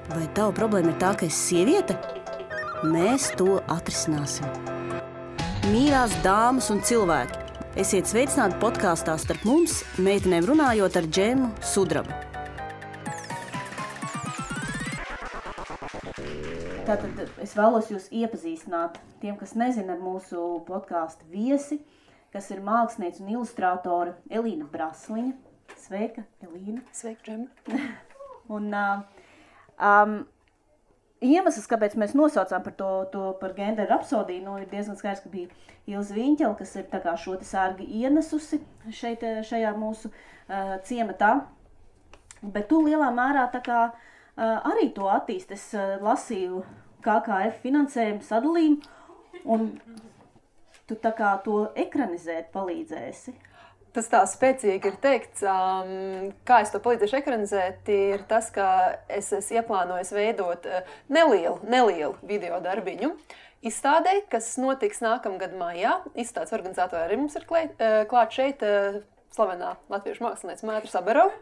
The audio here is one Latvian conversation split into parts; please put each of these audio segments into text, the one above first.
Vai tava problēma ir tā, ka esi sieviete? Mēs to atrisināsim. Mīļās dāmas un cilvēki, esiet sveicināti podkāstā Starp mums, meitenēm runājot ar Džemu Sudrabu. Tātad es vēlos jūs iepazīstināt tiem, kas nezina, ar mūsu podkāstu viesi, kas ir māksliniece un ilustrātore Elīna Brasliņa. Sveika, Elīna. Sveika, Džema. Un iemesls, kāpēc mēs nosaucām par genderu rapsodiju, ir diezgan skaidrs, ka bija Ilze Viņķele, kas ir tā kā šo te sārgi ienesusi šajā mūsu ciematā. Bet tu lielā mērā tā kā arī to attīst. Es lasīju KKF finansējumu sadalījumu, un tu tā kā to ekranizēt palīdzēsi. Tas tā spēcīgi ir teikts, kā es to palīdzēšu ekranizēt, ir tas, ka es ieplānoju veidot nelielu video darbiņu izstādē, kas notiks nākamgad maijā. Izstādes organizatori arī mums ir klāt šeit slavenā latviešu mākslinieca Mētra Sabarova.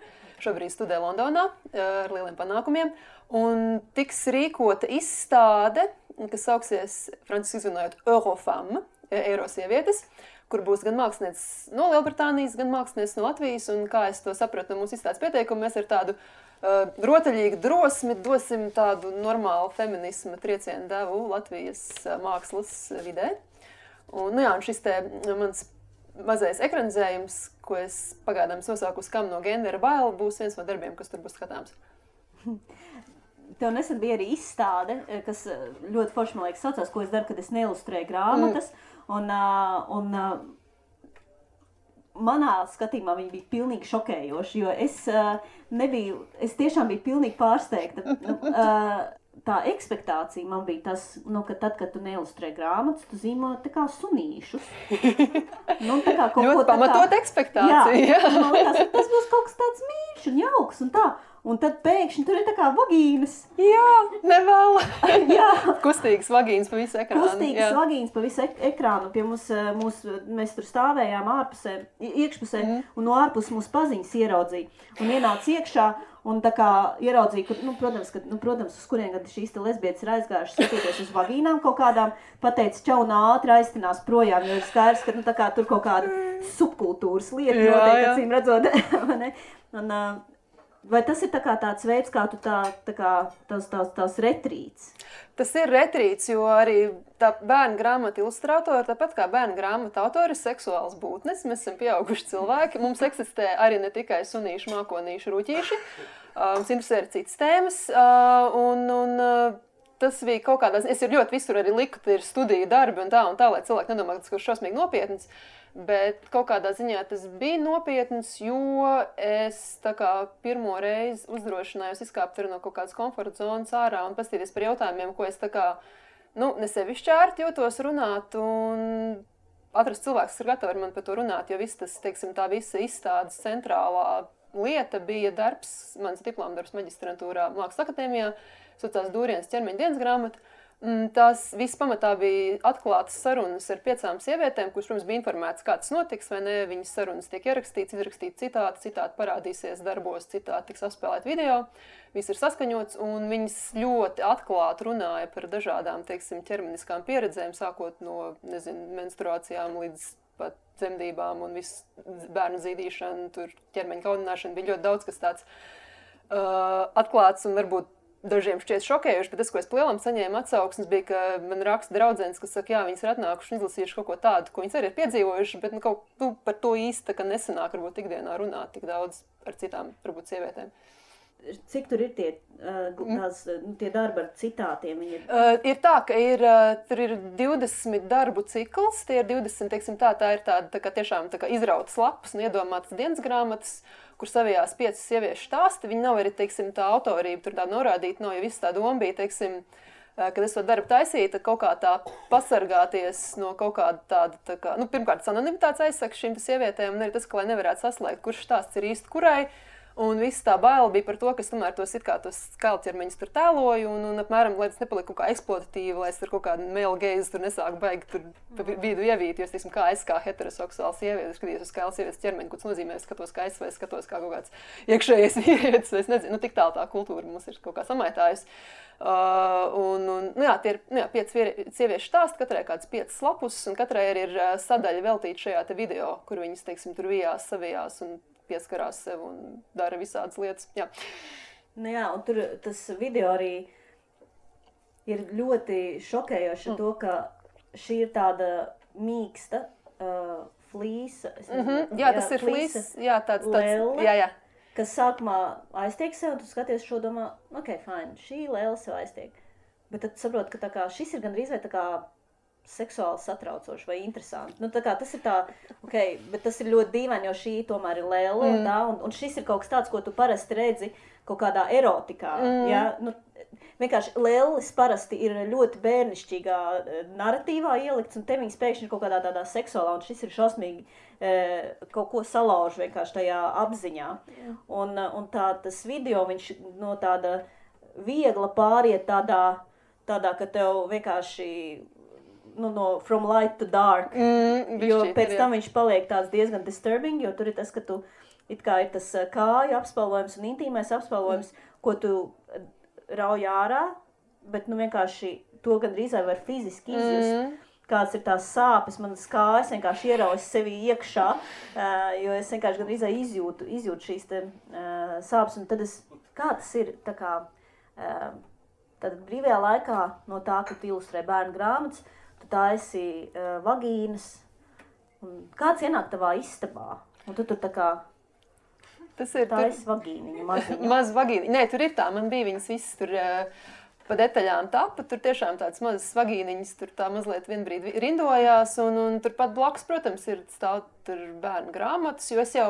Šobrīd studē Londonā ar lieliem panākumiem. Un tiks rīkota izstāde, kas sauksies franciski izrunājot Eurofemme, Eiro sievietes, kur būs gan mākslinieces no Lielbritānijas, gan mākslinieces no Latvijas. Un kā es to sapratu no mūsu izstādes pieteikumu, mēs ar tādu rotaļīgu drosmi dosim tādu normālu feminisma triecienu devu Latvijas mākslas vidē. Un šis te mans mazais ekranizējums, ko es pagaidām nosaukus Kam no gendera baila, būs viens no darbiem, kas tur būs skatāms. Tev nesen bija arī izstāde, kas ļoti forši, man liekas, saucās, ko es daru, kad es neilustrēju grāmatas. Un manā skatījumā viņi bija pilnīgi šokējoši, jo es tiešām biju pilnīgi pārsteigta. Tā ekspektācija man bija tas, ka tad, kad tu neilustrē grāmatas, tu zīmo tā kā sunīšus. Tā kā ļoti pamatot ekspektācija. Jā. Man liekas, tas būs kaut kas tāds mīļš un jauks un tā. Un tad pēkšņi tur ir tā kā vagīnas. Jā, nevēl. Jā. Kustīgas vagīnas pa visu ekrānu. Kustīgas vagīnas pa visu ekrānu. Pie mēs tur stāvējām iekšpusē, un no ārpus mūsu paziņas ieraudzīja. Un ienāca iekšā, un tā kā ieraudzīja, protams, uz kurien kad šīs te lesbietes ir aizgājušas skatīties uz vagīnām kaut kādām, pateica čau un ātri aiztinās projām, jo ir skaidrs, ka tā kā tur kaut kāda subkultūras lieta notiek, acīm redzot. Vai tas ir tāds veids, kā tu tās retrīts? Tas ir retrīts, jo arī tā bērnu grāmata ilustrātori, tāpat kā bērnu grāmata autori, ir seksuāls būtnes. Mēs esam pieauguši cilvēki. Mums eksistē arī ne tikai sunīši, mākonīši, ruķīši. Mums interesē arī citas tēmas. Tas bija kaut kādā ziņā. Es ļoti visur arī liku, ka ir studiju darbi un tā, lai cilvēki nedomā, ka tas ir šausmīgi nopietns. Bet kaut kādā ziņā tas bija nopietns, jo es tā kā pirmo reizi uzdrošinājos izkāpt no kaut kādas komforta zonas ārā un pastīties par jautājumiem, ko es tā kā, ne sevišķi ērti jūtos runāt un atrast cilvēks, kas ir gatavi ar mani par to runāt, jo viss tas, tā visa izstādes centrālā lieta bija darbs, mans diplomdarbs maģistrantūrā Mākslas akadēmijā, saucās Dūrienas ķermeņa dienas grāmata. Tās viss pamatā bija atklātas sarunas ar 5 sievietēm, kuras, protams, bija informētas, kā tas notiks, vai ne, viņas sarunas tiek ierakstīts, izrakstīt citāti parādīsies darbos, citāti tiks apspēlēt video, viss ir saskaņots, un viņas ļoti atklāti runāja par dažādām, ķermeniskām pieredzēm, sākot no, menstruācijām līdz pat dzemdībām un viss bērnu zīdīšana, tur ķermeņa kaunināšana, bija ļoti daudz, kas tāds atklāts un varbūt dažiem šķiet šokējuši, bet tas, ko es plielam saņēmu atsauksmes, bija, ka man raksta draudzenes, kas saka, jā, viņas ir atnākuši un izlasījuši kaut ko tādu, ko viņas arī ir piedzīvojuši, bet par to īsti nesanāk varbūt ikdienā runāt tik daudz ar citām, varbūt, sievietēm. Cik tur ir tie darbi ar citātiem? Ir tā, ka tur ir 20 darbu cikls, tie ir 20, tā ir tāda tiešām izrautas lapas un iedomātas dienas grāmatas, kur savijās 5 sieviešu stāsti. Viņi nav arī, tā autorība tur tāda norādīta, jo viss tā doma bija, kad es to darbu taisīju, tad kaut kā tā pasargāties no kaut kāda tāda, pirmkārt, anonimitātes aizsaka šīm sievietēm, un arī tas, ka lai nevarētu saslēgt, kurš stāsts ir īsti kurai, Un viss tā baila bija par to, ka es tomēr tos skaļķermeņus tur tēloju, un apmēram, lai tas nepaliek kaut kā eksploatatīvi, lai es tur kaut kādu male gaze tur nesāku baigi tur pa vidu ievīt, jo es, teiksim, kā es kā heteroseksuāls sievietes skatījos uz skaļas sievietes ķermeni, ko tas nozīmē, es skatos kā es, vai skatos kā kaut kāds iekšējais vīrietis, vai es nezinu, tik tālu tā kultūra mums ir kaut kā samaitājusi. Tie ir 5 sieviešu stāsti, katrai kāds 5 lapus, un katrai arī ir sadaļa veltīta šajā te video, kur viņas, teiksim, tur vijās, savijās un pieskarās sev un dara visādas lietas. Jā. Nu jā, un tur tas video arī ir ļoti šokējoši to, ka šī ir tāda mīksta flīsa. Jā, tas ir flīsa. Jā, tāds lēle. Jā. Kas sākumā aiztiek sev, un tu skaties šo domā, ok, fine, šī lēle sev aiztiek. Bet tad saprot, ka tā kā šis ir gandrīz vai tā kā seksuāli satraucoši vai interesanti. Nu, tā kā tas ir tā, ok, bet tas ir ļoti dīvaini, jo šī tomēr ir lēle, un šis ir kaut kas tāds, ko tu parasti redzi kaut kādā erotikā. Ja? Nu, vienkārši lēlis parasti ir ļoti bērnišķīgā naratīvā ielikts, un te viņas pēkšņi ir kaut kādā tādā seksuālā, un šis ir šausmīgi kaut ko salauž vienkārši tajā apziņā. Un tas video, viņš no tāda viegla pāriet tādā, ka tev vienkārši no from light to dark, jo pēc tam viņš paliek tāds diezgan disturbing, jo tur ir tas, ka tu it kā ir tas kāju apspalvojums un intīmais apspalvojums, ko tu rauj ārā, bet vienkārši to gandrīz var fiziski izjust. Kāds ir tās sāpes, manas kājas vienkārši ieraujas sevi iekšā, jo es vienkārši gandrīz izjūtu šīs te sāpes, un tad kā tas ir, tā kā, tad brīvajā laikā no tā, ka tu ilustrē bērnu grāmatas, tu taisi vagīnas, un kāds ienāk tavā istabā, un tu tur tā kā taisi vagīniņu, maziņu. Maz vagīniņu, nē, tur ir tā, man bija viņas visas tur pa detaļām tapa, tur tiešām tāds mazas vagīniņas, tur tā mazliet vienbrīd rindojās, un tur pat blakus, protams, ir stāv tur bērnu grāmatas, jo es jau,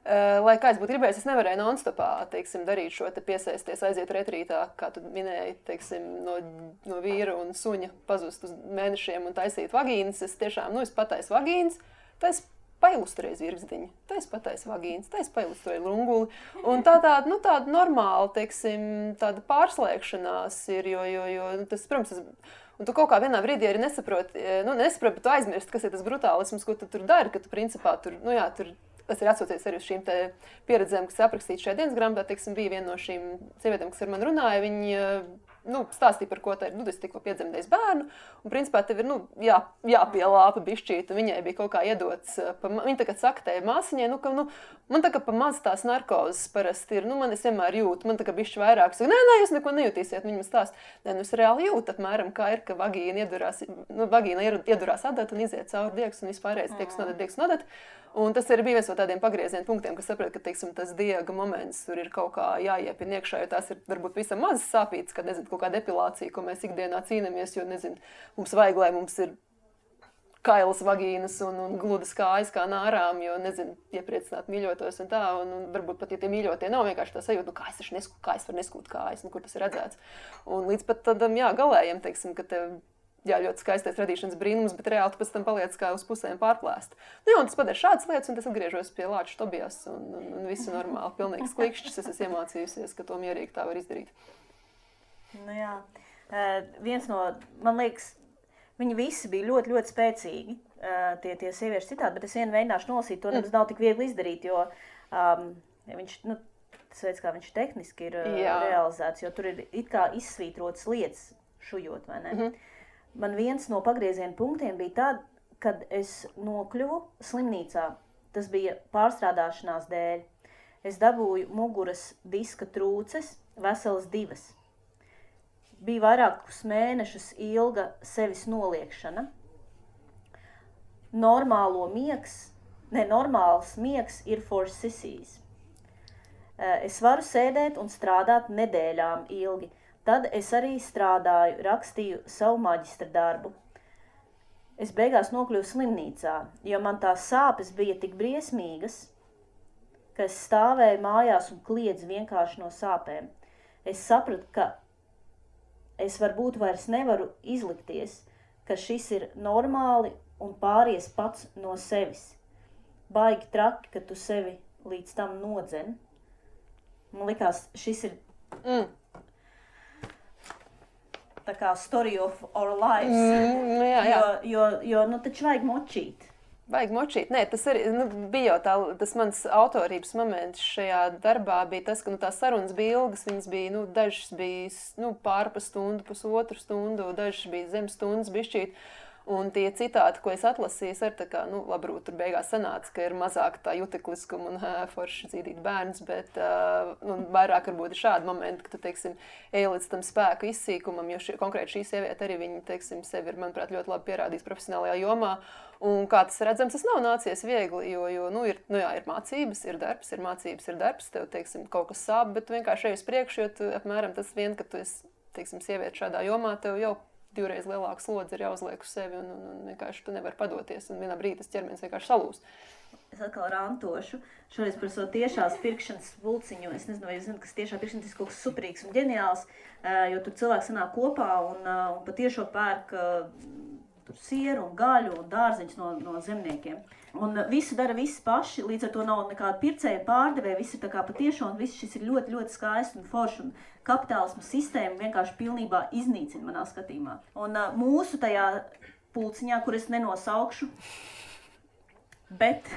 lai kā es būtu gribējis, es nevarēju non-stopā, teiksim, darīt šo te piesaisties, aiziet retrītā, kā tu minēji, teiksim, no vīra un suņa pazust uz mēnešiem un taisīt vagīnas. Es tiešām, es pataisu vagīnas, tais pailustrēju zirgzdiņu, tais pataisu vagīnas, tais pailustrēju lunguli. Un tāda normāla, teiksim, tāda pārslēgšanās ir, jo tas, protams, un tu kaut kā vienā brīdī arī nesaproti, bet tu aizmirsti, kas ir tas brutālisms, ko tu tur dari, ka tu principā tur, tas ir atsaucies arī uz šīm te pieredzēm, kas aprakstīts šajā dienas grāmatā, teiksim, bija viena no šīm sievietēm, kas ar mani runāja, viņi stāstīja par ko tā ir, es tikko piedzemdējis bērnu, un principā tev ir, jāpielāpa bišķīt, un viņai bija kaut kā iedots, viņa tagad saka tai māsiņai, man tā kā pa maz tās narkozes parasti ir, man es vienmēr jūtu, man tā kā bišķi vairāk, saka, nē, jūs neko nejutīsiet, viņa man stāst, es reāli jūtu apmēram, kā ir, ka vagīna iedurās adat un iziet cauri diegs un vispārējais diegs nodat. Un tas arī bija viens no tādiem pagrieziena punktiem, kas saprot, ka, teiksim, tas diega moments tur ir kaut kā jāiepina iekšā, jo tās ir varbūt visam mazas sāpītas, kad, kaut kāda epilācija, ko mēs ikdienā cīnamies, jo, mums vajag, lai mums ir kailas vagīnas un gludas kājas kā nārām, jo, iepriecināt mīļotos un tā, un varbūt pat, ja tie mīļotie nav vienkārši tā sajūta, kā es varu neskūt kājas, kur tas ir redzēts. Un līdz pat tādam, galējiem, teiksim, ka tev ļoti skaistais radīšanas brīnums, bet reāli tu pēc tam paliec kā uz pusēm pārplēst. Un tas padara šādas lietas, un tas atgriežos pie Lāča Tobijas, un visu normāli, pilnīgs klikšķis, es esmu iemācījusies, ka to mierīgi tā var izdarīt. Viens no, man liekas, viņi visi bija ļoti, ļoti spēcīgi, tie sievieši citādi, bet es vienu mēģināšu nolasīt, to nav tik viegli izdarīt, jo viņš, tas veids, kā viņš tehniski ir realizēts, jo tur ir it kā izsvītrotas lietas šujot, vai ne? Man viens no pagrieziena punktiem bija tad, kad es nokļuvu slimnīcā. Tas bija pārstrādāšanās dēļ. Es dabūju muguras diska trūces, veselas 2. Bija vairākus mēnešus ilga sevis noliekšana. Normāls miegs ir for sissies. Es varu sēdēt un strādāt nedēļām ilgi. Tad es arī strādāju, rakstīju savu maģistra darbu. Es beigās nokļuvu slimnīcā, jo man tās sāpes bija tik briesmīgas, ka es stāvēju mājās un kliedzu vienkārši no sāpēm. Es sapratu, ka es varbūt vairs nevaru izlikties, ka šis ir normāli un pāries pats no sevis. Baigi traki, ka tu sevi līdz tam nodzen. Man likās, šis ir tā kā story of our lives. Jo taču vajag močīt. Vajag močīt. Nē, tas arī bija jau tas mans autorības moments šajā darbā bija tas, ka tās sarunas bija ilgas, viņas bija, dažas bija pārpa stundu, pusotru stundu, dažas bija zem stundas bišķīt. Un tie citāti, ko es atlasīju, ir tā kā, labrūt, tur beigās sanāca, ka ir mazāk tā jutekliskuma un forši dzīdīt bērns, bet vairāk varbūt ir šādi momenti, ka tu, teiksim, ej līdz tam spēku izsīkumam, jo konkrēti šī sieviete arī viņa, teiksim, sevi ir, manuprāt, ļoti labi pierādījis profesionālajā jomā. Un kā tas redzams, tas nav nācies viegli, jo ir mācības, ir darbs, ir mācības, ir darbs, tev, teiksim, kaut kas sāp, bet tu vienkārši ej uz priekšu, jo tu, apmēram tas vien, ka tu esi, teiksim, sieviete šādā jomā, tev jau 2 reizes lielāka slodze ir jāuzliek uz sevi un vienkārši tu nevari padoties un vienā brīdī tas ķermenis vienkārši salūst. Es atkal rantošu. Šoreiz par savu tiešās pirkšanas pulciņu. Es nezinu, vai jūs zināt, kas tiešā pirkšanas ir kaut kas superīgs un ģeniāls, jo tur cilvēki sanāk kopā un pa tiešo pērk tur sieru un gaļu un dārzeņus no zemniekiem. Un visu dara visi paši, līdz ar to nav nekāda pircēja pārdevēja, viss ir tā kā patiešo un viss šis ir ļoti, ļoti skaisti un forši un kapitālismu sistēma vienkārši pilnībā iznīcina manā skatījumā. Un mūsu tajā pulciņā, kur es nenosaukšu, bet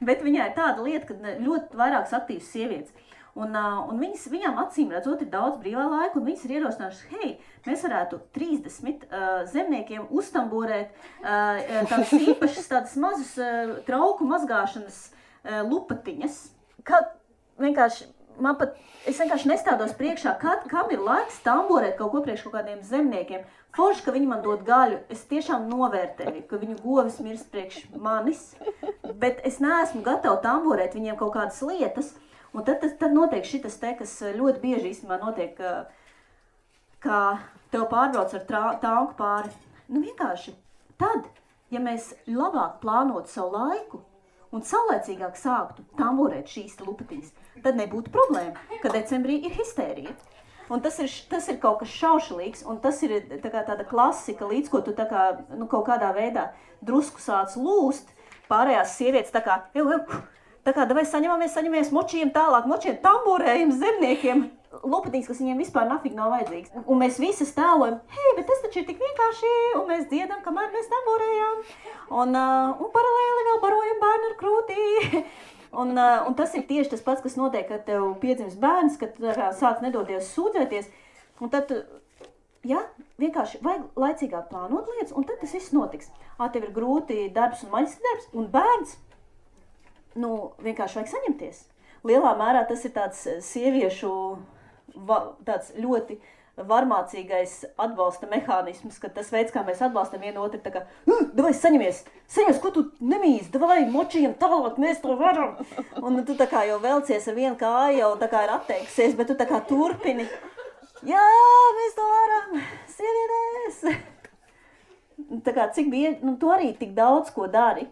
viņā ir tāda lieta, ka ļoti vairākas aktīvas sievietes. Un viņām acīm redzot ir daudz brīvā laika, un viņas ir ierosinājušas, hei, mēs varētu 30 zemniekiem uztamborēt tādas īpašas, tādas mazas trauku mazgāšanas lupatiņas. Es vienkārši nestādos priekšā, kam ir laiks tamborēt kaut ko priekš kaut kādiem zemniekiem. Forši, ka viņi man dod gaļu, es tiešām novērtēju, ka viņu govis mirst priekš manis, bet es neesmu gatava tamborēt viņiem kaut kādas lietas. Un tad notiek šitas te, kas ļoti bieži īstenībā notiek, kā tev pārbrauc ar tanku pāri. Vienkārši tad, ja mēs labāk plānotu savu laiku un saulēcīgāk sāktu tamborēt šīs lupatiņas, tad nebūtu problēma, ka decembrī ir histērija. Un tas ir kaut kas šaušalīgs, un tas ir tāda klasika, līdz ko tu kaut kādā veidā drusku sāc lūst, pārējās sievietes tā kā davai saņemamies, močījam tālāk, tamborējam zemniekiem, lupatiņas, kas viņiem vispār nafig nav vajadzīgs. Un mēs visas tēlojam, hei, bet tas taču ir tik vienkārši, un mēs dziedam, kamēr mēs tamborējām. Un paralēli vēl barojam bērnu ar krūtī. Un tas ir tieši tas pats, kas notiek, kad tev piedzims bērns, kad tu sāc nedodies sūdzēties. Un tad, vienkārši vajag laicīgāk plānot lietas, un tad tas viss notiks. Tev ir grūti darbs un maģistra darbs, un bērns. Vienkārši vajag saņemties. Lielā mērā tas ir tāds sieviešu tāds ļoti varmācīgais atbalsta mehānisms, ka tas veids, kā mēs atbalstam vienu otru, tā kā, davai saņemies, ko tu nemīzi, davai močījam tālāk, mēs to varam. Un tu tā kā jau velcies ar vienu kāju, jau tā kā ir atteikusies, bet tu tā kā turpini. Jā, mēs to varam, sievietes. Tā kā cik bieži, tu arī tik daudz ko dari.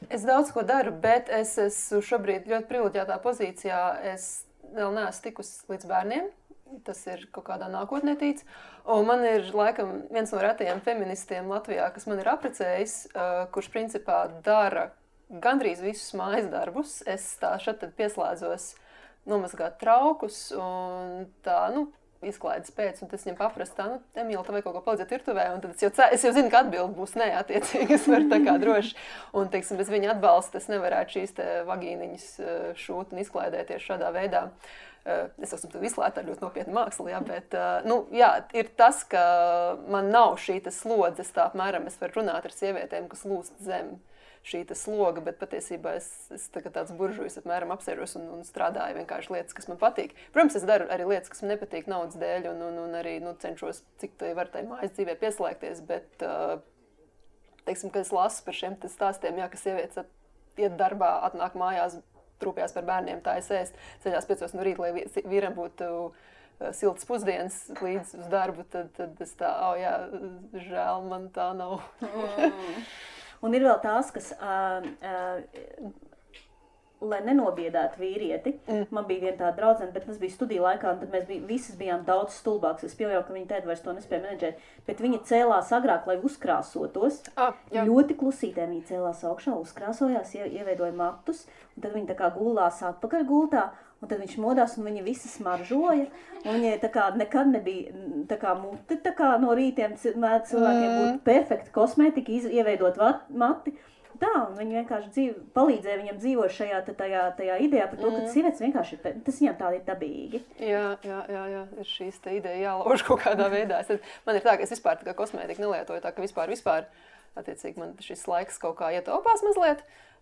Es daudz ko daru, bet es esmu šobrīd ļoti privileģētā pozīcijā. Es vēl neesmu tikusi līdz bērniem. Tas ir kaut kādā nākotnē tīts. Un man ir laikam viens no retajiem feministiem Latvijā, kas man ir apprecējis, kurš principā dara gandrīz visus mājas darbus. Es šad pieslēdzos nomazgāt traukus un tā, izklaides pēc, un tas viņam paprast tā, Emīla, tev vajag kaut ko palīdzēt virtuvē, un tad es jau zinu, ka atbildi būs nē, attiecīgi, es varu tā kā droši, un, teiksim, bez viņa atbalsta es nevarētu šīs te vagīniņas šūt un izklaidēties šādā veidā. Es esmu tu izslēgta ar ļoti nopietnu mākslu, bet, ir tas, ka man nav šī slodzes, tā apmēram es varu runāt ar sievietēm, kas lūst zem šī sloga, bet patiesībā es tāds buržujs apmēram apsēžos un strādāju vienkārši lietas, kas man patīk. Protams, es daru arī lietas, kas man nepatīk naudas dēļ un arī cenšos, cik tai var tai mājas dzīvē pieslēgties, bet, teiksim, kad es lasu par šiem stāstiem, ka sievietes iet darbā, atnāk mājās, trūpjās par bērniem, tā es ēst, ceļās 5 no rīta, lai vīram būtu siltas pusdienas līdz uz darbu, tad es tā, žēl, man tā nav. Un ir vēl tās, kas, lai nenobiedētu vīrieti, man bija viena tāda draudzene, bet tas bija studiju laikā, un tad mēs visas bijām daudz stulbāks. Es pieļauju, ka viņa tēta vairs to nespēja menedžēt, bet viņa cēlās agrāk, lai uzkrāsotos. Ļoti klusītēm viņa cēlās augšā, uzkrāsojās, ieveidoja matus, un tad viņa tā kā gulās atpakaļ gultā, un tad viņš modās, un viņa visa smaržoja, un viņai tā kā nekad nebija tā kā mute, tā kā no rītiem cilvēkiem būtu perfekta kosmētika, ieveidot mati. Tā, un viņi vienkārši palīdzēja viņam dzīvot šajā tajā idejā par to, ka sievietes vienkārši tas viņam tā ir dabīgi. Jā, ir šīs te ideja jālauž kaut kādā veidā. Man ir tā, ka es vispār tā kā kosmētiku nelietoju, tā ka vispār, attiecīgi man šis laiks kaut kā ietaupās mazliet.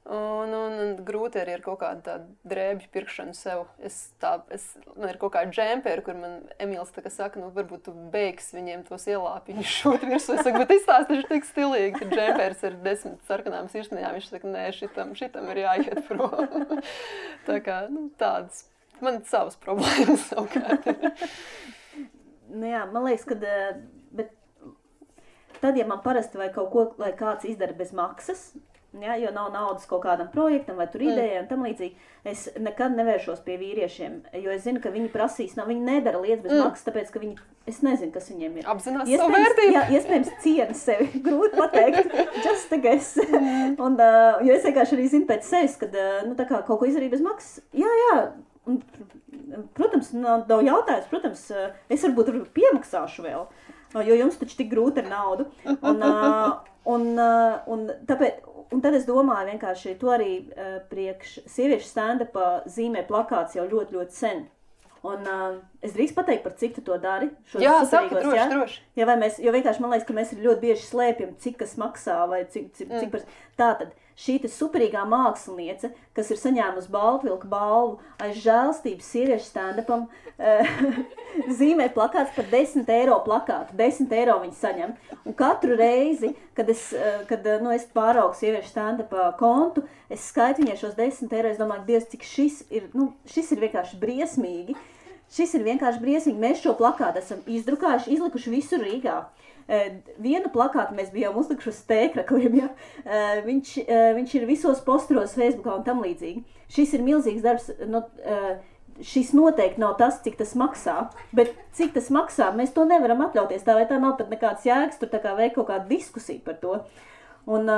Un grūti arī ar kaut kādu tādu drēbju pirkšanu sev. Man ir kaut kāda džemperi, kur man Emīls tā kā saka, nu varbūt tu beigs viņiem tos ielāpiņus šūt virsū. Es saku, bet izstāst, taču tik stilīgi, ka džemperis ir 10 sarkanām sirsniņām. Viņš saka, nē, šitam ir jāiet prom. Tā kā, tādas. Man savas problēmas savukārt. Jā, man liekas, ka bet tad, ja man parasti vai kaut ko, lai kāds izdara bez maksas, ja, jo nav naudas kaut kādam projektam vai tur idejai un tam līdzīgi, es nekad nevēršos pie vīriešiem, jo es zinu, ka viņi prasīs, viņi nedara lietas bez maksas, tāpēc, ka es nezinu, kas viņiem ir. Apzinās savu vērtību. Jā, iespējams ciena sevi, grūti pateikt, just a guess. Un, jo es vienkārši arī zinu pēc sevis, kad, tā kā kaut ko izdarīju bez maksas, jā, un, protams, nav jautājums, protams, es varbūt piemaksāšu vēl, jo jums taču tik grūti ar naudu. Un tad es domāju vienkārši, to arī priekš sieviešu stand-upā zīmē plakāts jau ļoti, ļoti sen. Un es drīkst pateikt, par cik tu to dari? Jā, saka, droši. Ja, jo vienkārši man liekas, ka mēs ļoti bieži slēpjam, cik kas maksā vai cik par... Tātad, šī superīgā māksliniece, kas ir saņēmusi Baltvilka balvu aiz žēlstības sieviešu stand-upam, zīmē plakāts par 10 eiro plakātu. 10 eiro viņi saņem. Un katru reizi, kad es pāraugu sieviešu stand-upā kontu, es skaitu viņai šos 10 eiro, es domāju, Dievs, cik šis ir vienkārši briesmīgi. Šis ir vienkārši briesmīgi. Mēs šo plakātu esam izdrukājuši, izlikuši visur Rīgā. Vienu plakātu mēs bijām uzlikuši uz tēkrakliem, ja? Viņš ir visos posteros Facebookā un tam līdzīgi. Šis ir milzīgs darbs, šis noteikti nav tas, cik tas maksā, bet cik tas maksā, mēs to nevaram atļauties, tā vai tā nav pat nekāds jēgas, tur tā kā veik kaut kādu diskusiju par to. Un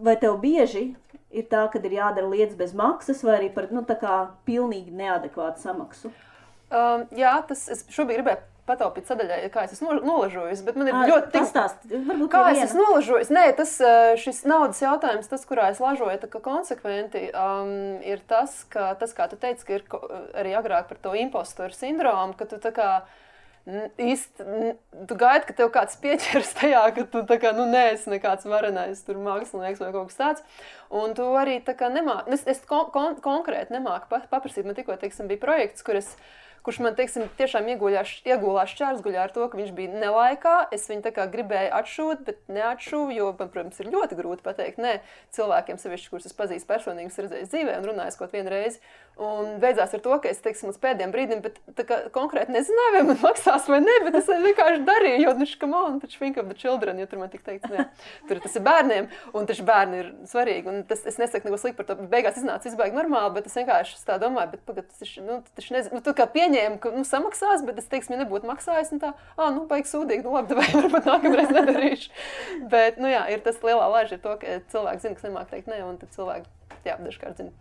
vai tev bieži ir tā, kad ir jādara lietas bez maksas, vai arī par, tā kā pilnīgi neadekvātu samaksu? Jā, es šobrīd gribēju pataupīt sadaļai, kā es esmu nolažojusi, bet man ir ļoti... Pastāst, varbūt kā es esmu nolažojusi? Nē, šis naudas jautājums, tas, kurā es lažoju, tā kā konsekventi, ir tas, kā tu teici, ka ir arī agrāk par to impostoru sindromu, ka tu tā kā tu gaidi, ka tev kāds pieķers tajā, ka tu tā kā, neesi nekāds varenais tur mākslinieks vai kaut kas tāds. Un tu arī tā kā nemāki, es konkrēti nemāku paprasīt, man tikko, bija projekts, kurš man, tiešām iegulās šķērsguļā ar to, ka viņš bija nelaikā. Es viņu tā kā gribēju atšūt, bet neatšuvu, jo man, protams, ir ļoti grūti pateikt nē cilvēkiem, sevišķi, kurus es pazīstu personīgi, redzējis dzīvē un runājis kaut vienu reizi. Un beidzās ar to, ka es, līdz pēdējiem brīdim, bet tā kā konkrēti nezināju, vai man maksās vai ne, bet es vienkārši darīju, jo, come on, taču think of the children, jo tur man tik teikts, nē, tur tas ir bērniem, un taču bērni ir svarīgi, un es nesaku neko slikti par to, beigās iznāca izbaigi normāli, bet es vienkārši tā domāju, bet pagad, taču nezinu, tu kā pieņēmu, ka, samaksās, bet es, ja nebūtu maksājis, un tā, baigi sūdīgi, labi, vai varbūt nākamreiz nedarīšu. Bet, jā, ir tas lielā lāža ir to, ka cilvēki zina, kas nemāk teikt ne, un tad cilvēki, dažkārt zina.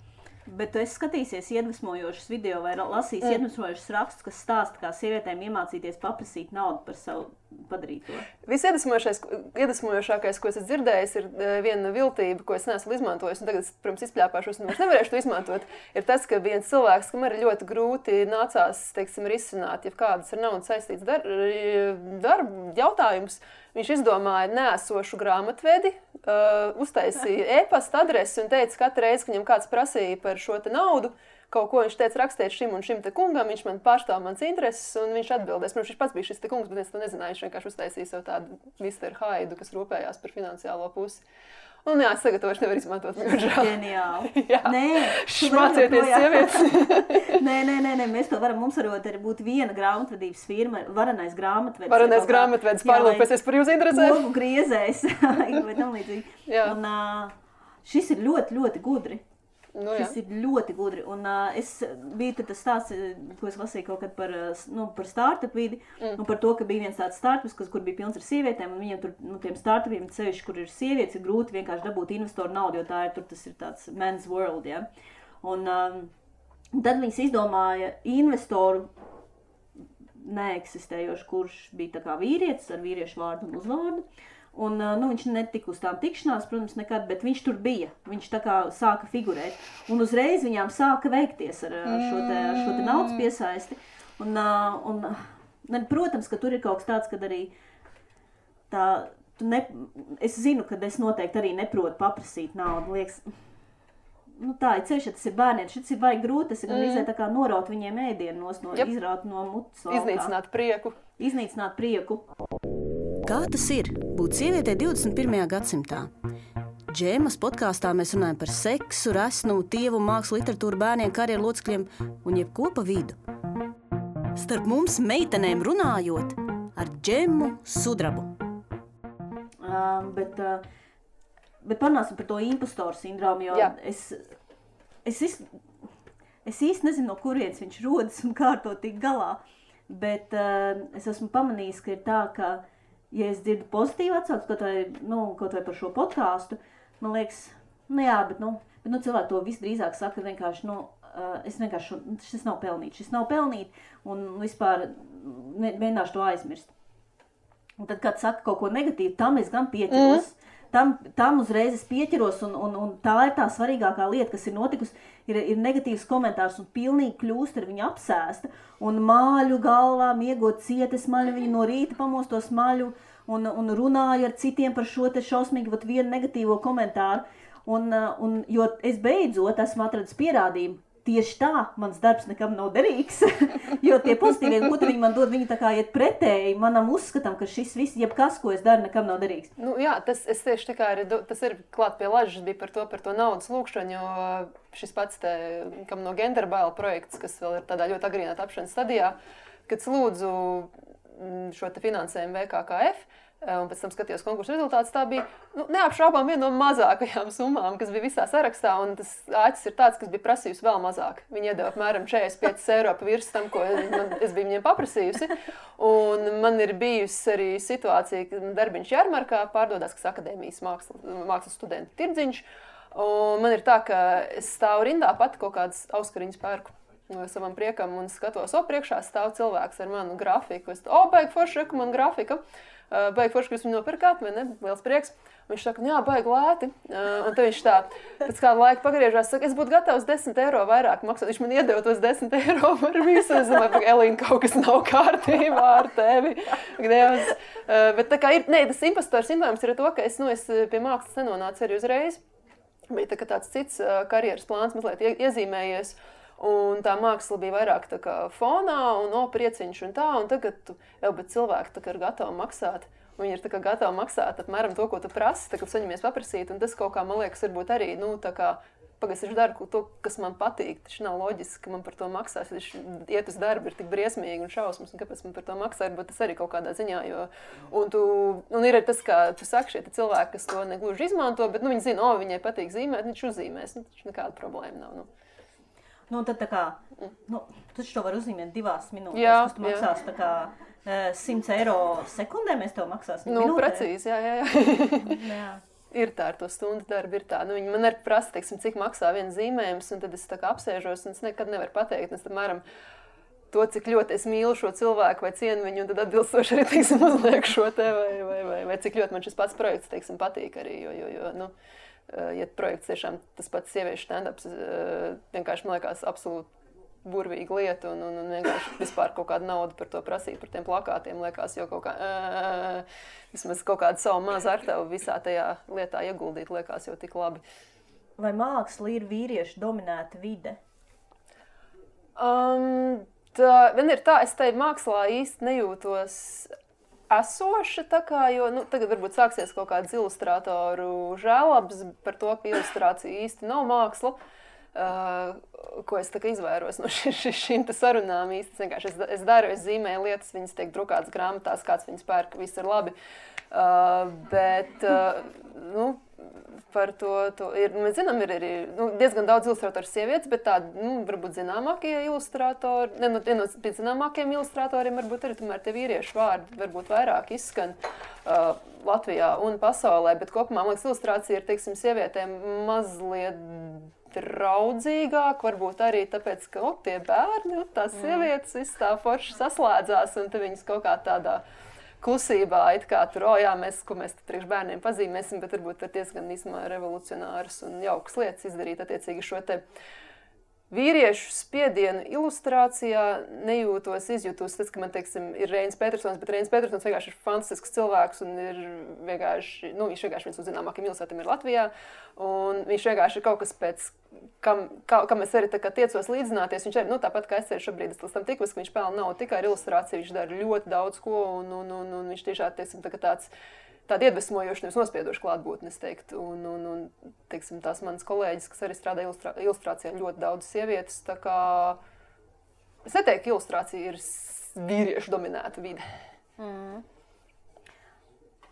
Bet tu esi skatīsies iedvesmojošus video vai lasījis iedvesmojošus rakstus, kas stāsta, kā sievietēm iemācīties paprasīt naudu par savu padarīto? Visiedvesmojošākais, ko es dzirdējis, ir viena viltība, ko es neesmu izmantojis, un tagad, protams, izpļāpāšos, un vairs nevarēšu to izmantot, ir tas, ka viens cilvēks, kam arī ļoti grūti nācās, risināt, ja kādas ar naudu saistīts darba jautājums, viņš izdomāja neesošu grāmatvedi, uztaisīja e-pasta adresi un teica, katru reizi, ka viņam kāds prasīja par šo te naudu, kaut ko viņš teica rakstīt šim un šim te kungam, viņš man pārstāv mans intereses un viņš atbildēs. Protams, viņš pats bija šis te kungs, bet es to nezināju, viņš vienkārši uztaisīja sev tādu Mr. Haidu, kas rūpējās par finansiālo pusi. Un jā, es tagad to vairs nevaru izmantot. Ģeniāli. Jā. Nē, šmācieties sievietes. Nē, mēs to varam, mums varot arī būt viena grāmatvedības firma, varenais grāmatvedis. Varenais grāmatvedis, pārlūpēsies par jūsu interesēm. Logu griezējs, vai tam līdzīgi. Un šis ir ļoti, ļoti gudri. Šis ir ļoti gudri. Un es biju tas stāsts, ko es lasīju kaut kad par startup vidi, un par to, ka bija viens tāds startups, kur bija pilns ar sievietēm, un viņiem tur, tiem startupiem, sevišķi, kur ir sievietes, ir grūti vienkārši dabūt investoru naudu, jo tas ir tāds men's world, ja. Un Un tad viņas izdomāja investoru neeksistējošu, kurš bija tā kā vīrietis ar vīriešu vārdu un uzvārdu. Un, viņš netika uz tām tikšanās, protams, nekad, bet viņš tur bija. Viņš tā kā sāka figurēt. Un uzreiz viņām sāka veikties ar šo te naudas piesaisti. Un, protams, ka tur ir kaut kas tāds, kad arī es zinu, ka es noteikti arī neprotu paprasīt naudu. Liekas, tā ir ceļš, ja tas ir bērniem. Šis ir vajag grūti, tas ir gan tā kā noraut viņiem ēdienu, izraut no mutes. Iznīcināt prieku. Kā tas ir būt sievietei 21. gadsimtā? Džēmas podkāstā mēs runājam par seksu, resnumu, tievu, mākslu, literatūru, bērniem, karjeru locekļiem un jebko pa vidu. Starp mums meitenēm runājot ar Džemu Sudrabu. Bet parunāsim par to impostoru sindromu, jo es īsti nezinu, no kurienes viņš rodas un kā ar to tik galā. Bet es esmu pamanījis, ka ir tā, ka, ja es dzirdu pozitīvu atsauksmi, kaut vai par šo podkāstu, man liekas, bet cilvēki to visdrīzāk saka vienkārši, šis nav pelnīt, un vispār mēģināšu to aizmirst. Un tad, kad saka kaut ko negatīvu, tam es gan pieķeros. Tam uzreiz es pieķeros, un tā ir tā svarīgākā lieta, kas ir notikusi, ir negatīvs komentārs, un pilnīgi kļūst ar viņu apsēsta, un māļu galvā, miegot cieti smaļu, viņu no rīta pamosto smaļu, un runāju ar citiem par šo te šausmīgi vienu negatīvo komentāru, jo es beidzot esmu atradis pierādījumu. Tieši tā, mans darbs nekam nav derīgs, jo tie pozitīvie gūti viņi man dod, viņi tā kā iet pretēji manam uzskatam, ka šis viss, jebkas, ko es daru, nekam nav derīgs. Tas ir klāt pie lažas bija par to naudas lūkšanu, jo šis pats kam no Genderbaila projekts, kas vēl ir tādā ļoti agrīnā tapšanas stadijā, kad lūdzu šo te finansējumu VKKF, un pēc tam skatījos konkursu rezultātus, tā bija neapšaubām viena no mazākajām summām, kas bija visā sarakstā, un tas āķis ir tāds, kas bija prasījusi vēl mazāk. Viņi iedeva apmēram 45 eiro pa virs tam, ko es biju viņiem paprasījusi, un man ir bijusi arī situācija, ka darbiņš Jarmarkā pārdodās, kas akadēmijas mākslas studentu tirdziņš, un man ir tā, ka es stāvu rindā pati kaut kādas auskariņas pērku savam priekam un skatos, priekšā stāv cilvēks ar manu grafiku. Baigi forši, man grafika. Baigi forši, ka jūs viņu nopirkāt, vai ne? Liels prieks. Viņš saka, baigi lēti. Un tad viņš tā, pēc kāda laika pagriežās, saka, es būtu gatavs 10 eiro vairāk maksāt. Viņš man iedeva tos 10 eiro par visu. Es domāju, Elīna, kaut kas nav kārtībā ar tevi. Dievs. Bet tā kā tas impostoru sindroms ir to, ka es pie mākslas nenonācu arī uzreiz. Bija tāds cits karjeras plāns mazliet iezīmējies. Un tā māksla bija vairāk tā kā fonā un prieciņš un tā, un tagad bet cilvēki tā kā ir gatavi maksāt. Viņi ir tā kā gatavi maksāt apmēram to, ko tu prasi, tā kā saņemies paprasīt, un tas kaut kā, man liekas, varbūt arī, tā kā, pagaidzi, es daru to, kas man patīk, taču nav loģiski, ka man par to maksās, iet uz darbu ir tik briesmīgi un šausmas, un kāpēc man par to maksā, bet tas arī kaut kādā ziņā, un ir tas, kā tu saki, šie cilvēki, kas to negluži izmanto, bet, viņi zina, viņai patīk zīmēt, viņš uzzīmēs, taču nekāda problēma nav, tad tā kā, tu to var uzzīmēt 2 minūtēs, kas tu maksās tā kā 100 eiro sekundē, mēs tev maksāsim minūtē. Precīzi, jā. Ir tā, ar to stundu darbu ir tā. Viņi man arī prasa, cik maksā viens zīmējums, un tad es tā kā apsēžos, un es nekad nevaru pateikt, es apmēram to, cik ļoti es mīlu šo cilvēku vai cienu viņu, un tad atbilstoši arī, uzliek šo te, vai cik ļoti man šis pats projekts, patīk arī, jo ja projekts tiešām tas pats sieviešu stand-ups, vienkārši man liekas absolūti burvīga lieta un vienkārši vispār kaut kādu naudu par to prasīt, par tiem plakātiem, liekas jau kaut kā, vismaz kaut kādu savu mazu artavu visā tajā lietā ieguldīt, liekas jau tik labi. Vai māksla ir vīriešu dominēta vide? Vien ir tā, es tai mākslā īsti nejūtos esoša, tā kā, jo tagad varbūt sāksies kaut kāds ilustrātoru žēlabs par to, ka ilustrācija īsti nav māksla, ko es tā kā izvairos no šīm sarunām īsti. Es daru, es zīmēju lietas, viņas tiek drukātas grāmatās, kāds viņas pērk, viss ir labi. Bet, par to ir, mēs zinām, ir arī diezgan daudz ilustrātoru sievietes, bet tādi, varbūt zināmākie ilustrātori, viena no zināmākiem ilustrātoriem varbūt arī tomēr tie vīriešu vārdi varbūt vairāk izskan Latvijā un pasaulē, bet kopumā, man liekas, ilustrācija ir, sievietēm mazliet draudzīgāk, varbūt arī tāpēc, ka tie bērni, tās sievietes, viss tā forši saslēdzās, un te viņas kaut kā tādā klusībā, it kā tur, ko mēs priekš bērniem pazīmēsim, bet varbūt var diezgan īstenībā revolucionāras un jaukas lietas izdarīt attiecīgi šo te vīriešu spiedienu ilustrācijā izjūtos tas, ka man, teiksim, ir Reinis Petersons, bet Reinis Petersons vienkārši ir fantastisks cilvēks un ir vienkārši, viņš vienkārši viens no zināmākajiem ilustratiem ir Latvijā, un viņš vienkārši ir kaut kas pēc, kam es arī tā kā tiecos līdzināties, viņš arī, tāpat kā es arī šobrīd es tam tikos, ka viņš pelna nav tikai ar ilustrāciju, viņš dara ļoti daudz ko, un viņš tiešām, teiksim, tāda iedvesmojoša, nevis nospiedoša klātbūtne, es teiktu. Un teiksim, tās manas kolēģis, kas arī strādā ilustrācijā, ļoti daudz sievietes. Tā kā es neteiktu, ka ilustrācija ir vīriešu dominēta vide.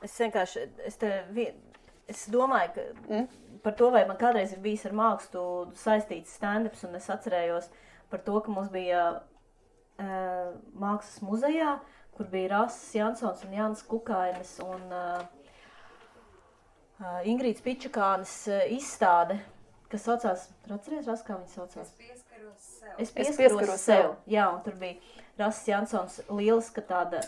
Es vienkārši, es domāju, ka par to, vai man kādreiz ir bijis ar mākslu saistīts stand-ups, un es atcerējos par to, ka mums bija mākslas muzejā, kur bija Rasis Jansons un Jānis Kukainis un Ingrīds Pičakānis izstāde, kas saucās, atceries, Ras, kā viņa saucās? Es pieskaros sev. Jā, un tur bija Rasis Jansons lieliska tāda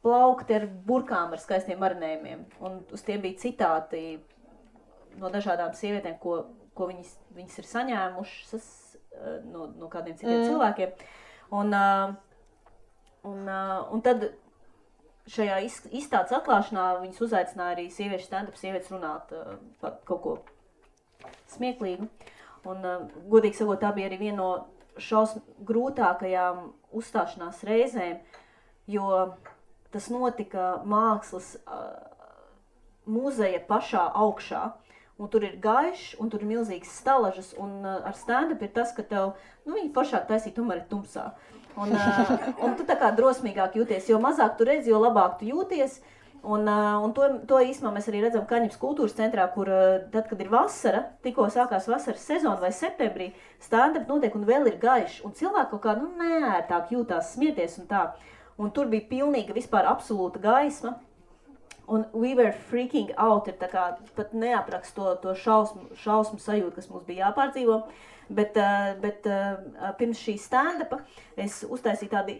plaukti ar burkām ar skaistiem marinējumiem, un uz tiem bija citāti no dažādām sievietēm, ko viņas ir saņēmušas no kādiem citiem cilvēkiem. Un tad šajā izstādes atklāšanā viņas uzaicināja arī sieviešu stand-up, sievietes runāt par kaut ko smieklīgu. Un, godīgi sakot, tā bija arī viena no grūtākajām uzstāšanās reizēm, jo tas notika mākslas muzeja pašā augšā. Un tur ir gaišs, un tur ir milzīgas stalažas, un ar stand-up ir tas, ka tev, viņi pašāk taisīt, tomēr ir tumsā. Un tu tā kā drosmīgāk jūties, jo mazāk tu redzi, jo labāk tu jūties. Un to īstenībā mēs arī redzam Kaņepes kultūras centrā, kur tad, kad ir vasara, tikko sākās vasaras sezona vai septembrī, stand-up notiek un vēl ir gaišs. Un cilvēki kaut kā, neērtāk jūtās smieties un tā. Un tur bija pilnīga vispār absolūta gaisma. Un we were freaking out, ir tā kā pat neaprakst to šausmu sajūtu, kas mums bija jāpārdzīvo. Bet pirms šī stand-upa es uztaisīju tādu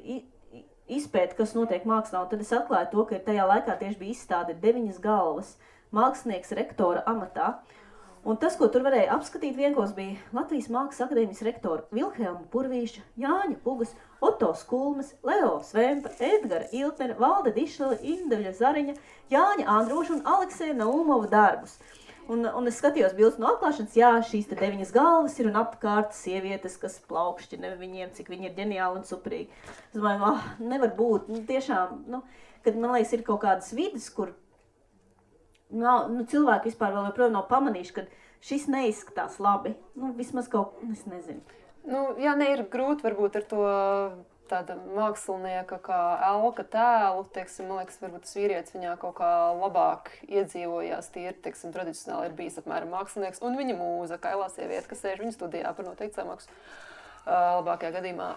izpēti, kas notiek mākslā, un tad es atklāju to, ka tajā laikā tieši bija izstāde 9 galvas mākslinieks rektora amatā. Un tas, ko tur varēja apskatīt vienkos, bija Latvijas Mākslas akadēmijas rektora Vilhelma Purvīša, Jāņa Pugas, Oto Skulmes, Leo Svempa, Edgara Iltnera, Valde Dišlele, Indeļa Zariņa, Jāņa Androša un Aleksēja Naumova darbus. Un es skatījos bildes no atklāšanas, šīs te 9 galvas ir un apkārt sievietes, kas plaukšķina viņiem, cik viņi ir ģeniāli un superīgi. Es domāju, nevar būt, tiešām, kad man liekas ir kaut kādas vidas, kur cilvēki vispār vēl joprojām nav pamanījuši, ka šis neizskatās labi. Vismaz kaut, es nezinu. Ir grūti varbūt ar to tāda mākslinieka kā elka tēlu, teiksim, man liekas, varbūt tas vīrietis viņā kaut kā labāk iedzīvojās, teiksim, tradicionāli ir bijis apmēram mākslinieks, un viņa mūza, kailā sieviete, kas sēž viņa studijā par noteikti samaksu. Labākajā gadījumā.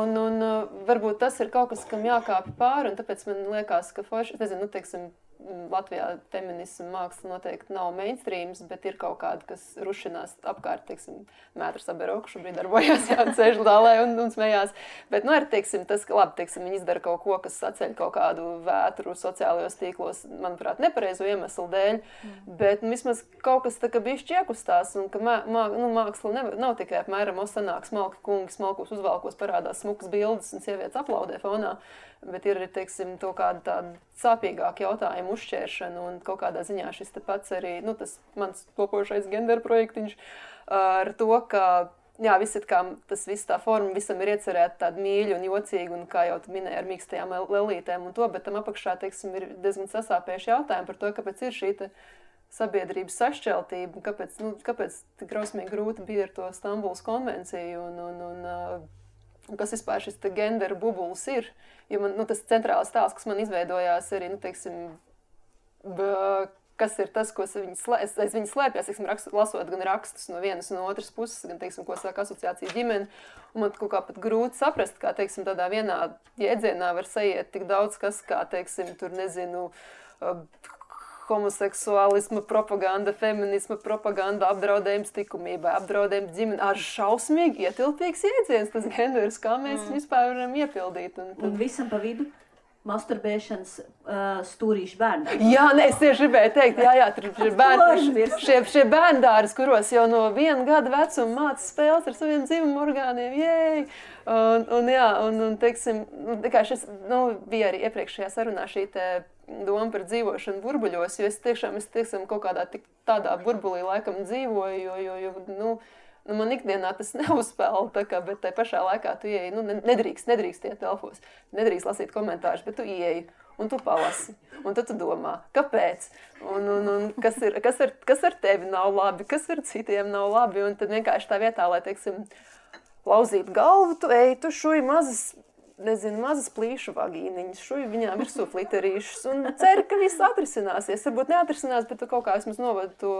Un varbūt tas ir kaut kas, kam jākāpj pāri, un tāpēc man liekas, ka forši, nezinu, teiksim, Latvijā feminismu māksla noteikti nav mainstreams, bet ir kaut kāda, kas rušinās apkārt, teiksim, Mētra Saberoka šobrīd darbojās, sēž zālē un smējās. Bet, ir, teiksim, tas, ka labi, teiksim, viņi izdara kaut ko, kas saceļ kaut kādu vētru sociālajos tīklos, manuprāt, nepareizu iemeslu dēļ, bet vismaz kaut kas tā kā bišķi iekustās, un ka māksla nav tikai apmēram sanāk smalki kungi, smalkos uzvalkos parādās smukas bildes un sievietes aplaudē fonā, bet ir arī, teiksim, to kādu tādu sāpīgāku jautājumu uzšķēršanu un kaut kādā ziņā šis te pats arī, tas mans topošais gender projektiņš ar to, ka, tas viss tā forma visam ir iecerēta tāda mīļa un jocīga un, kā jau tu minēji, ar mīkstajām lelītēm un to, bet tam apakšā, teiksim, ir diezgan sasāpējuši jautājumi par to, kāpēc ir šī te sabiedrības sašķeltība, kāpēc tik grausmīgi grūti bija ar to Stambulas konvenciju un kas vispār šis te gender bubulis ir, jo man, tas centrālais tēls, kas man izveidojās arī, teiksim, kas ir tas, ko aiz viņas slēpjas, teiksim, lasot gan rakstus no vienas un no otras puses, gan, teiksim, ko saka asociācija ģimene, un man kaut kā pat grūti saprast, kā, teiksim, tādā vienā jēdzienā var saiet tik daudz kas, kā, teiksim, tur, nezinu, homoseksuālisma propaganda, feminisma propaganda, apdraudējums likumībai, apdraudējums ģimeni. Šausmīgi ietilpīgs jēdziens tas genders, kā mēs vispār varam iepildīt. Un visam pa vidu masturbēšanas stūrīšu bērni. Jā, es tieši gribēju teikt, šie bērndāris, kuros jau no 1 gada vecuma māca spēles ar saviem dzimumu orgāniem, un teiksim, šis, bija arī iepriekšējā sarunā šī doma par dzīvošanu burbuļos, jo es tiešām kaut kādā tādā burbulī laikam dzīvoju, jo man ikdienā tas neuzspēl, bet tai pašā laikā tu ieeji, nedrīkst iet telfos, nedrīkst lasīt komentārus, bet tu ieeji un tu palasi, un tad tu domā, kāpēc, un kas ar tevi nav labi, kas ar citiem nav labi, un tad vienkārši tā vietā, lai, teiksim, lauzīt galvu, tu ej, tu šuj mazas plīšu vagīniņas, šuj viņām virsū fliterīšus, un ceru, ka viss atrisināsies, varbūt neatrisinās, bet tu kaut kā vismaz novadi to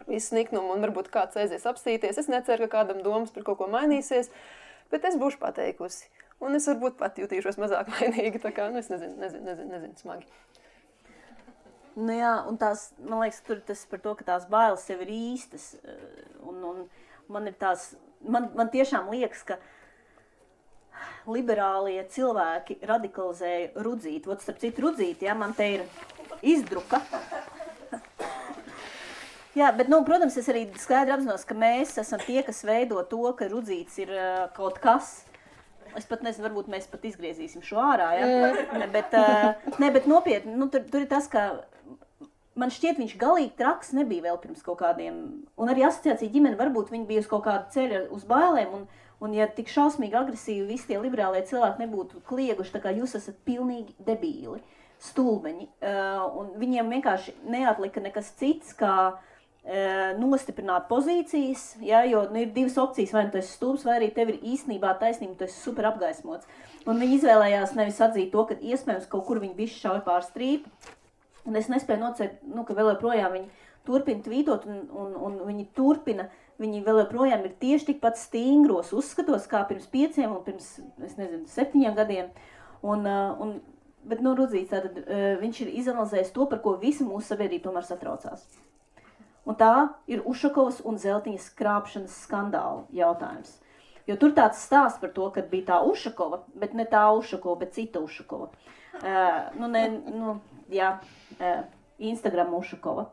visu niknumu, un varbūt kāds aizies apstīties. Es neceru, ka kādam domas par kaut ko mainīsies, bet es būšu pateikusi. Un es varbūt pat jutīšos mazāk vainīgi, tā kā, es nezinu, smagi. Jā, un tās, man liekas, tur tas par to, ka tās bailes sev ir īstas. Un man ir tās, man tiešām liekas, ka liberālie cilvēki radikalizēja Rudzīti. Starp citu Rudzīti, man te ir izdruka. Jā, bet, protams, es arī skaidri apzinos, ka mēs esam tie, kas veido to, ka Rudzītis ir kaut kas. Es pat nezinu, varbūt mēs pat izgriezīsim šo ārā, ja? Bet nopietni, tur ir tas, ka man šķiet, viņš galīgi traks nebija vēl pirms kaut kādiem, un arī asociācija ģimene varbūt viņi bija uz kaut kādu ceļu uz bailēm, un ja tik šausmīgi agresīvi visi tie liberālie cilvēki nebūtu klieguši, tā kā jūs esat pilnīgi debīli, stulbeņi, un viņiem vienkārši neatlika nekas cits, kā nostiprināt pozīcijas, jo ir 2 opcijas, vai tu esi stulbs, vai arī tev ir īstenībā taisnība, tu esi super apgaismots. Un viņi izvēlējās nevis atzīt to, ka iespējams kaut kur viņi bišķi šauj pār strīpu, un es nespēju nocert, ka vēl joprojām viņi turpina tvītot, un viņi vēl joprojām ir tieši tikpat stingros uzskatos, kā pirms 5 un pirms, 7 gadiem. Bet, Rudzīts, tātad viņš ir izanalizējis to, par ko visa mūsu sabiedrība tomēr satraucās. Un tā ir Ušakovas un Zeltiņas krāpšanas skandāla jautājums. Jo tur tāds stāsts par to, ka bija tā Ušakova, bet ne tā Ušakova, bet cita Ušakova. Instagram Ušakova.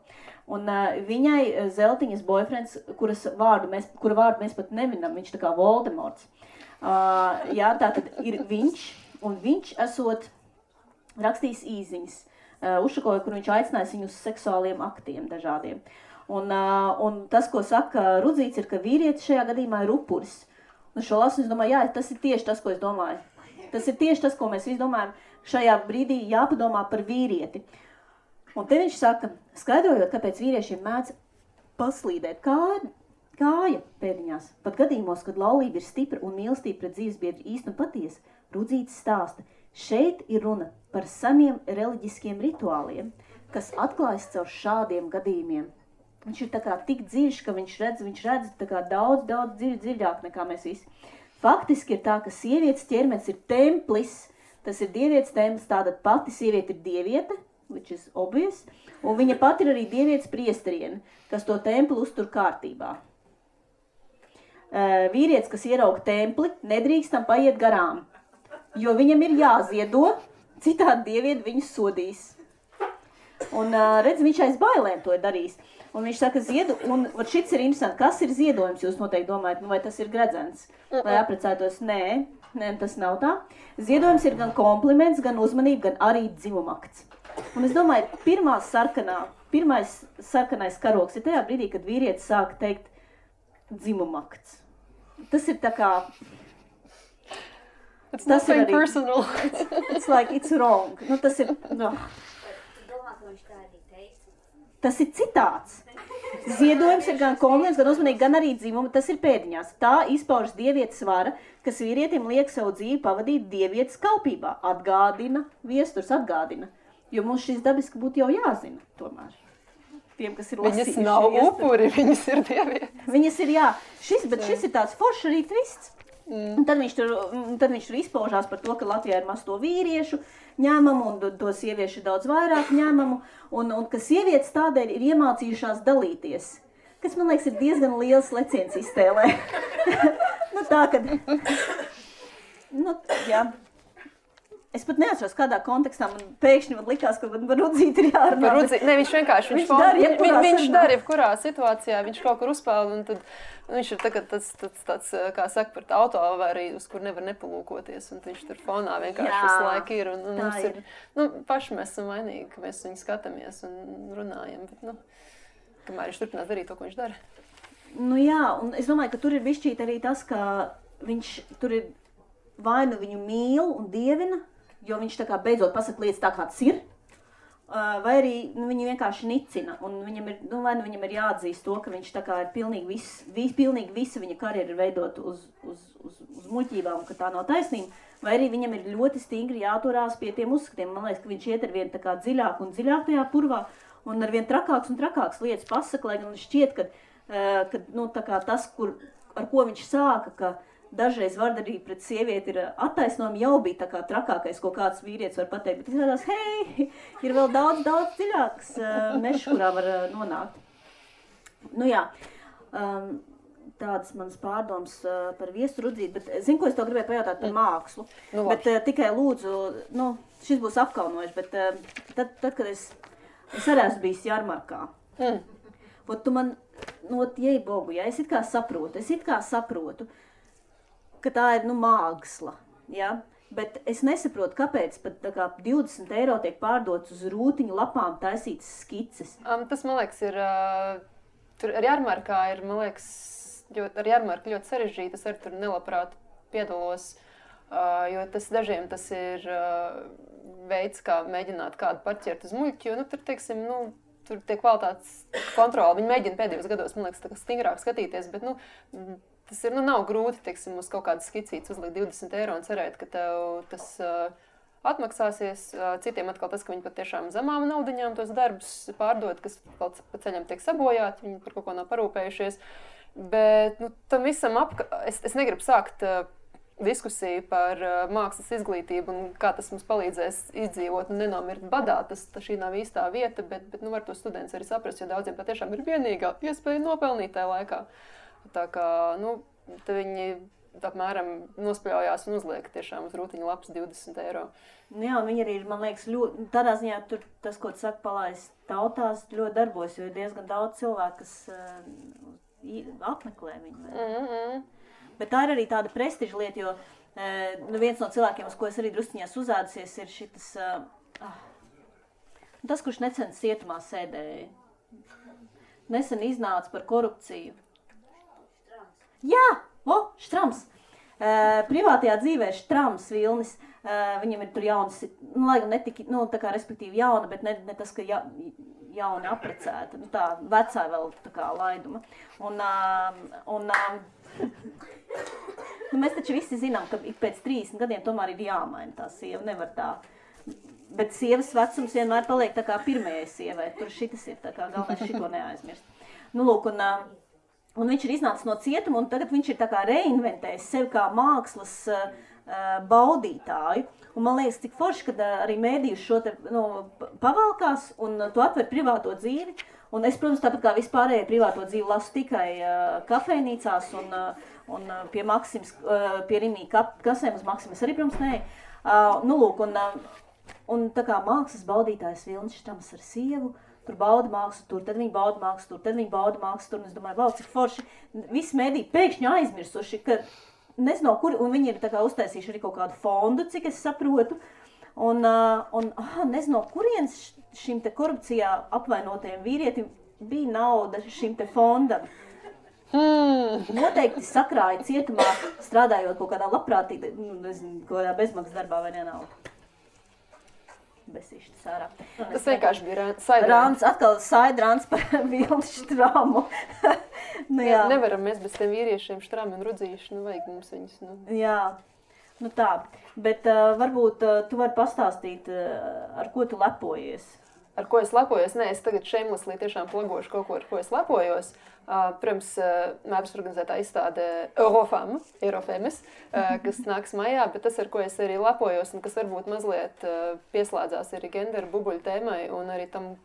Un viņai Zeltiņas boyfriends, kura vārdu mēs pat nevinam, viņš tā kā Voldemorts. Tātad ir viņš, un viņš esot rakstījis īziņas Ušakovai, kur viņš aicinājis viņu uz seksuāliem aktiem dažādiem. Un tas, ko saka Rudzīts, ir, ka vīrietis šajā gadījumā ir upuris. Un šo lasu es domāju, tas ir tieši tas, ko es domāju. Tas ir tieši tas, ko mēs visi domājam. Šajā brīdī jāpadomā par vīrieti. Un te viņš saka, skaidrojot, kāpēc vīriešiem mēdz paslīdēt kāja pēdiņās. Pat gadījumos, kad laulība ir stipra un mīlestība pret dzīvesbiedru īsti un patiesa, Rudzīts stāsta, šeit ir runa par seniem reliģiskiem rituāliem, kas atklājas caur šādiem gadījumiem. Viņš ir tā kā tik dziļš, ka viņš redz tā kā daudz dziļāk nekā mēs visi. Faktiski ir tā, ka sievietes ķermenis ir templis, tas ir dievietes templis, tātad pati sieviete ir dieviete, which is obvious, un viņa pati ir arī dievietes priesteriene, kas to templi uztur kārtībā. Vīrietis, kas ierauga templi, nedrīkstam paiet garām, jo viņam ir jāziedo, citādi dievieti viņu sodīs. Un redz, viņš aiz bailēm to ir darījis. Un viņš saka, un šits ir interesanti, kas ir ziedojums, jūs noteikti domājat, vai tas ir gredzens, lai aprecētos? Nē, tas nav tā. Ziedojums ir gan kompliments, gan uzmanība, gan arī dzimumakts. Un es domāju, pirmais sarkanais karoks ir tajā brīdī, kad vīrietis sāk teikt dzimumakts. Tas ir tā kā... It's nothing personal. It's like, it's wrong. Tas ir... Tas ir citāts. Ziedojums ir gan kompliments, gan uzmanīgi, gan arī dzimuma. Tas ir pēdiņās. Tā izpaužas dievietes vara, kas vīrietim liek savu dzīvi pavadīt dievietes kalpībā. Viesturs atgādina. Jo mums šis dabiski būtu jau jāzina tomēr. Tiem, kas ir lasījuši. Viņas nav upuri, viņas ir dievietes. Viņas ir, jā. Šis ir tāds foršs arī twists. Un tad viņš tur izpaužās par to, ka Latvijā ir maz to vīriešu ņēmumu, un to sieviešu ir daudz vairāk ņēmumu, un ka sievietes tādēļ ir iemācījušās dalīties, kas, man liekas, ir diezgan liels leciens iztēlē. Nu tā, kad... Nu, jā. Es pat neatceros, kādā kontekstā man pēkšņi likās, ka par Rudzīti ir jārunā. Ne, viņš vienkārši, viņš dara jebkurā situācijā, viņš kaut kur uzpeld, un tad viņš ir tagad tāds, kā saka, par autoavāriju, uz kur nevar nepalūkoties, un viņš tur fonā vienkārši visu laiku ir, un mums ir, paši mēs esam vainīgi, ka mēs viņu skatāmies un runājam, bet, kamēr viņš turpinās darīt to, ko viņš dara. Nu jā, un es domāju, ka tur ir bišķīt arī tas, ka viņš tur ir vai nu viņu mīl un dievina, jo viņš tā kā beidzot pasaka lietas tā, kā tas ir, vai arī viņu vienkārši nicina, un viņam ir, vai nu viņam ir jāatzīst to, ka viņš tā kā ir pilnīgi visa viņa karjera ir veidot uz muļķībām, ka tā nav taisnība, vai arī viņam ir ļoti stingri jāturās pie tiem uzskatiem. Man liekas, ka viņš iet ar vien tā kā dziļāk un dziļāk tajā purvā, un ar vien trakāks un trakāks lietas pasaka, lai gan šķiet, ka tā kā tas, ar ko viņš sāka, ka dažreiz vardarība pret sievieti ir attaisnojama, jau bija tā kā trakākais, ko kāds vīrietis var pateikt, bet izrādās, hei, ir vēl daudz dziļāks mešs, kurā var nonākt. Nu jā, tādas manas pārdomas par viesu Rudzīti, bet zinu, ko es tev gribēju pajautāt par mākslu, bet tikai lūdzu, šis būs apkaunojuši, bet tad, kad es arī esmu bijis Jarmarkā, tu man, jei bogu, ja, es it kā saprotu, ka tā ir, māksla, ja? Bet es nesaprotu, kāpēc pat tā kā 20 eiro tiek pārdots uz rūtiņu lapām taisītas skices. Tas, man liekas, ir, tur ar Jarmarkā ir, man liekas, ar Jarmarku ļoti sarežģīti, es arī tur nelabprāt piedalos, jo dažiem tas ir veids, kā mēģināt kādu parķert uz muļķi, jo, tur, teiksim, tur tiek kvalitātes kontrola, viņi mēģina pēdējos gados, man liekas, tā kā stingrāk skatīties, bet, tas ir, nav grūti, teiksim, uz kaut kādas skicītes uzlikt 20 eiro un cerēt, ka tev tas atmaksāsies. Citiem atkal tas, ka viņi patiešām zemām naudiņām tos darbus pārdod, kas pa ceļam tiek sabojāti, viņi par kaut ko nav parūpējušies. Bet, tam visam es negribu sākt diskusiju par mākslas izglītību un kā tas mums palīdzēs izdzīvot un nenomirt badā. Šī nav īstā vieta, bet var to students arī saprast, jo daudziem patiešām ir vienīgā iespēja nopelnīt tajā laikā. Tā kā, te viņi apmēram nospļaujās un uzliek tiešām uz rūtiņu lapas 20 eiro. Jā, un viņi arī ir, man liekas, ļoti, tādā ziņā tur tas, ko tu saka, palaist tautās, ļoti darbojas, jo ir diezgan daudz cilvēku, kas apmeklē viņu. Bet tā ir arī tāda prestiža lieta, jo viens no cilvēkiem, uz ko es arī drusciņās uzādusies, ir šitas, tas, kurš necens cietumā sēdēja. Nesen iznāca par korupciju. Jā, Štrams. Privātajā dzīvē Štrams Vilnis, viņam ir tur jaunas, lai gan netika, tā kā respektīvi jauna, bet ne tas, ka jauna aprecēta, tā vecā vēl tā kā laiduma. Un mēs taču visi zinām, ka pēc 30 gadiem tomēr ir jāmaina tā sieva, nevar tā. Bet sievas vecums vienmēr paliek tā kā pirmajai sievai, tur šitas ir tā kā galvenais šito neaizmirst. Lūk, un viņš ir iznācis no cietuma, un tagad viņš ir tā kā reinventējis sevi kā mākslas baudītāju. Un man liekas, cik forši, kad arī mēdījus šo te pavalkās, un tu atver privāto dzīvi. Un es, protams, tāpat kā vispārējie privāto dzīvi lasu tikai kafejnīcās un pie Maksimas, pie Rimī kasēm uz Maksimas arī, protams, nē. Lūk, un tā kā mākslas baudītājs Vilnis Štrams ar sievu, tur bauda mākslu tur, tad viņi bauda mākslu tur, tad viņi bauda mākslu tur, un es domāju, wow, cik forši, visi mēdī pēkšņi aizmirsuši, ka nezinu, kur, un viņi ir tā kā uztaisījuši arī kaut kādu fondu, cik es saprotu, un nezinu, kurienes šim te korupcijā apvainotajiem vīrietim bija nauda šim te fondam. Noteikti sakrāja cietumā, strādājot kaut kādā labprātīgi, nezinu, kaut kādā bezmaksas darbā vai nenauda. Besīšķi sārā. Tas vienkārši bija Saidrāns. Atkal Saidrāns par Vilni Štramu. Nevaram mēs bez tiem vīriešiem Štrami un Rudzīši, vajag mums viņus. Jā, tā. Bet varbūt tu vari pastāstīt, ar ko tu lepojies. ar ko es lepojos. Nē, es tagad shamelessly tiešām plagošu kaut ko, ar ko es lepojos. Protams, mēbras organizētā izstāde Eurofemes, kas nāks maijā, bet tas, ar ko es arī lepojos un kas varbūt mazliet pieslēdzās arī genderu bubuļu tēmai un arī tam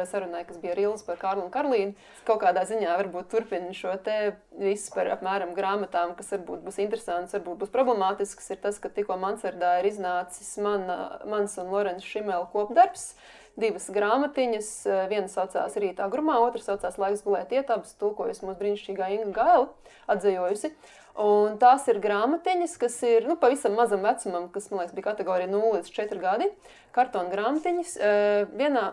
sarunai, kas bija Rīls par Kārlu un Karlīnu. Kaut kādā ziņā varbūt turpina šo te visu par apmēram grāmatām, kas varbūt būs interesants, varbūt būs problemātisks, ir tas, ka tikko Mansardā ir iznācis mans un Lorenza Šimela kopdarbs. 2 grāmatiņas, viena saucās Rītā grumā, otra saucās Laiks gulēt iet, abas tulkojas mūsu brīnišķīgā Inga Gaila, atdzejojusi. Un tās ir grāmatiņas, kas ir pavisam mazam vecumam, kas, man liekas, bija kategorija 0 līdz 4 gadi, kartona grāmatiņas.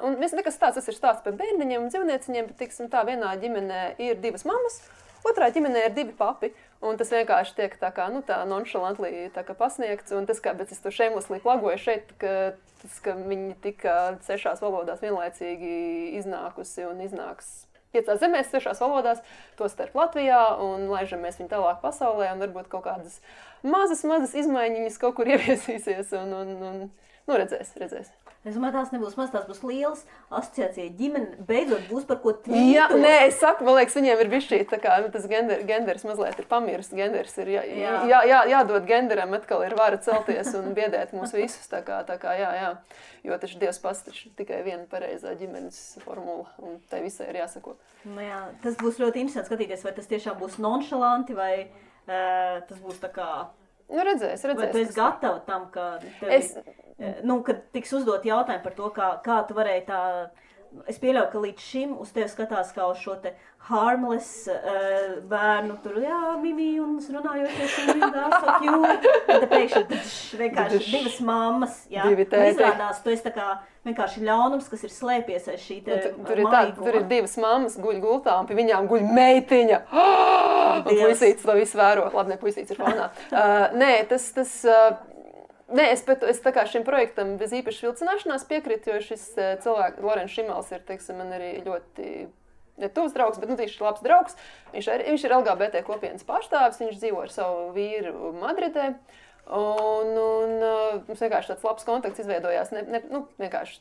Un nekas tāds, tas ir stāsts par bērniņiem un dzīvnieciņiem, bet, tiksim tā, vienā ģimenē ir 2 mammas, otrā ģimenē ir 2 papi. Un tas vienkārši tiek tā kā, tā nonšalantli tā kā pasniegts. Un tas, kā, bet es to shamelessly plagoju šeit, ka viņi tika 6 valodās vienlaicīgi iznākusi un iznāks 5 zemēs, 6 valodās, to starp Latvijā, un laižamies viņu tālāk pasaulē, un varbūt kaut kādas mazas izmaiņas kaut kur ieviesīsies, un redzēs. Es domāju, tās nebūs maz, tās būs lielas asociācija ģimene, beidzot būs par ko tvītot. Jā, nē, es saku, man liekas, viņiem ir bišķī, tā kā tas genders mazliet ir pamirs, genders ir jādod genderam, atkal ir vara celties un biedēt mūs visus, tā kā, jā. Jo taču Dievs pats taču tikai viena pareizā ģimenes formula, un tai visai ir jāsako. Jā, tas būs ļoti interesanti skatīties, vai tas tiešām būs nonšalanti, vai tas būs tā kā... Redzēs. Vai tu esi gatava tam, ka kad tiks uzdot jautājumu par to, kā tu varēji tā... Es pieļauju, ka līdz šim uz tevi skatās kā uz šo te harmless bērnu, tur, Mimi, un runājoties, un so cute. Un te pēkšņi vienkārši 2 mammas, un izrādās, tu esi tā kā vienkārši ļaunums, kas ir slēpies aiz šī te maiguma. Tur ir 2 mammas guļ gultā, un pie viņām guļ meitiņa. Un puisītis to visu vēro. Labi, ne, puisītis ir fonā. Nē, es tā kā šim projektam bez īpaši vilcināšanās piekrītu, jo šis cilvēks, Lorenza Šimels, ir, teiksim, man arī ļoti netuvs draugs, bet viņš ir labs draugs. Viņš ir LGBT kopienas pārstāvis, viņš dzīvo ar savu vīru Madridē. Un mums vienkārši tāds labs kontakts izveidojās, vienkārši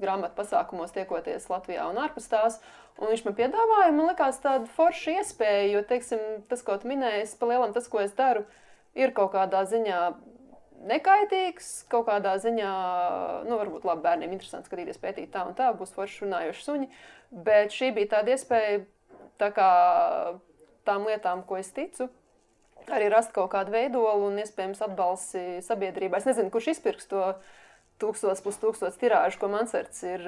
grāmatu pasākumos tiekoties Latvijā un ārpus tās. Un viņš man piedāvāja, man likās tāda forša iespēja, jo, teiksim, tas, ko tu minēji, pa lielam tas, ko es daru, ir kaut kādā ziņā nekaitīgs, kaut kādā ziņā, varbūt labi bērniem interesanti skatīties, pētīt tā un tā, būs forši runājoši suņi, bet šī bija tāda iespēja, tā kā tām lietām, ko es ticu, arī rast kaut kādu veidolu un iespējams atbalsi sabiedrībā. Es nezinu, kurš izpirks to 1000+ tirāžu, ko Mansards ir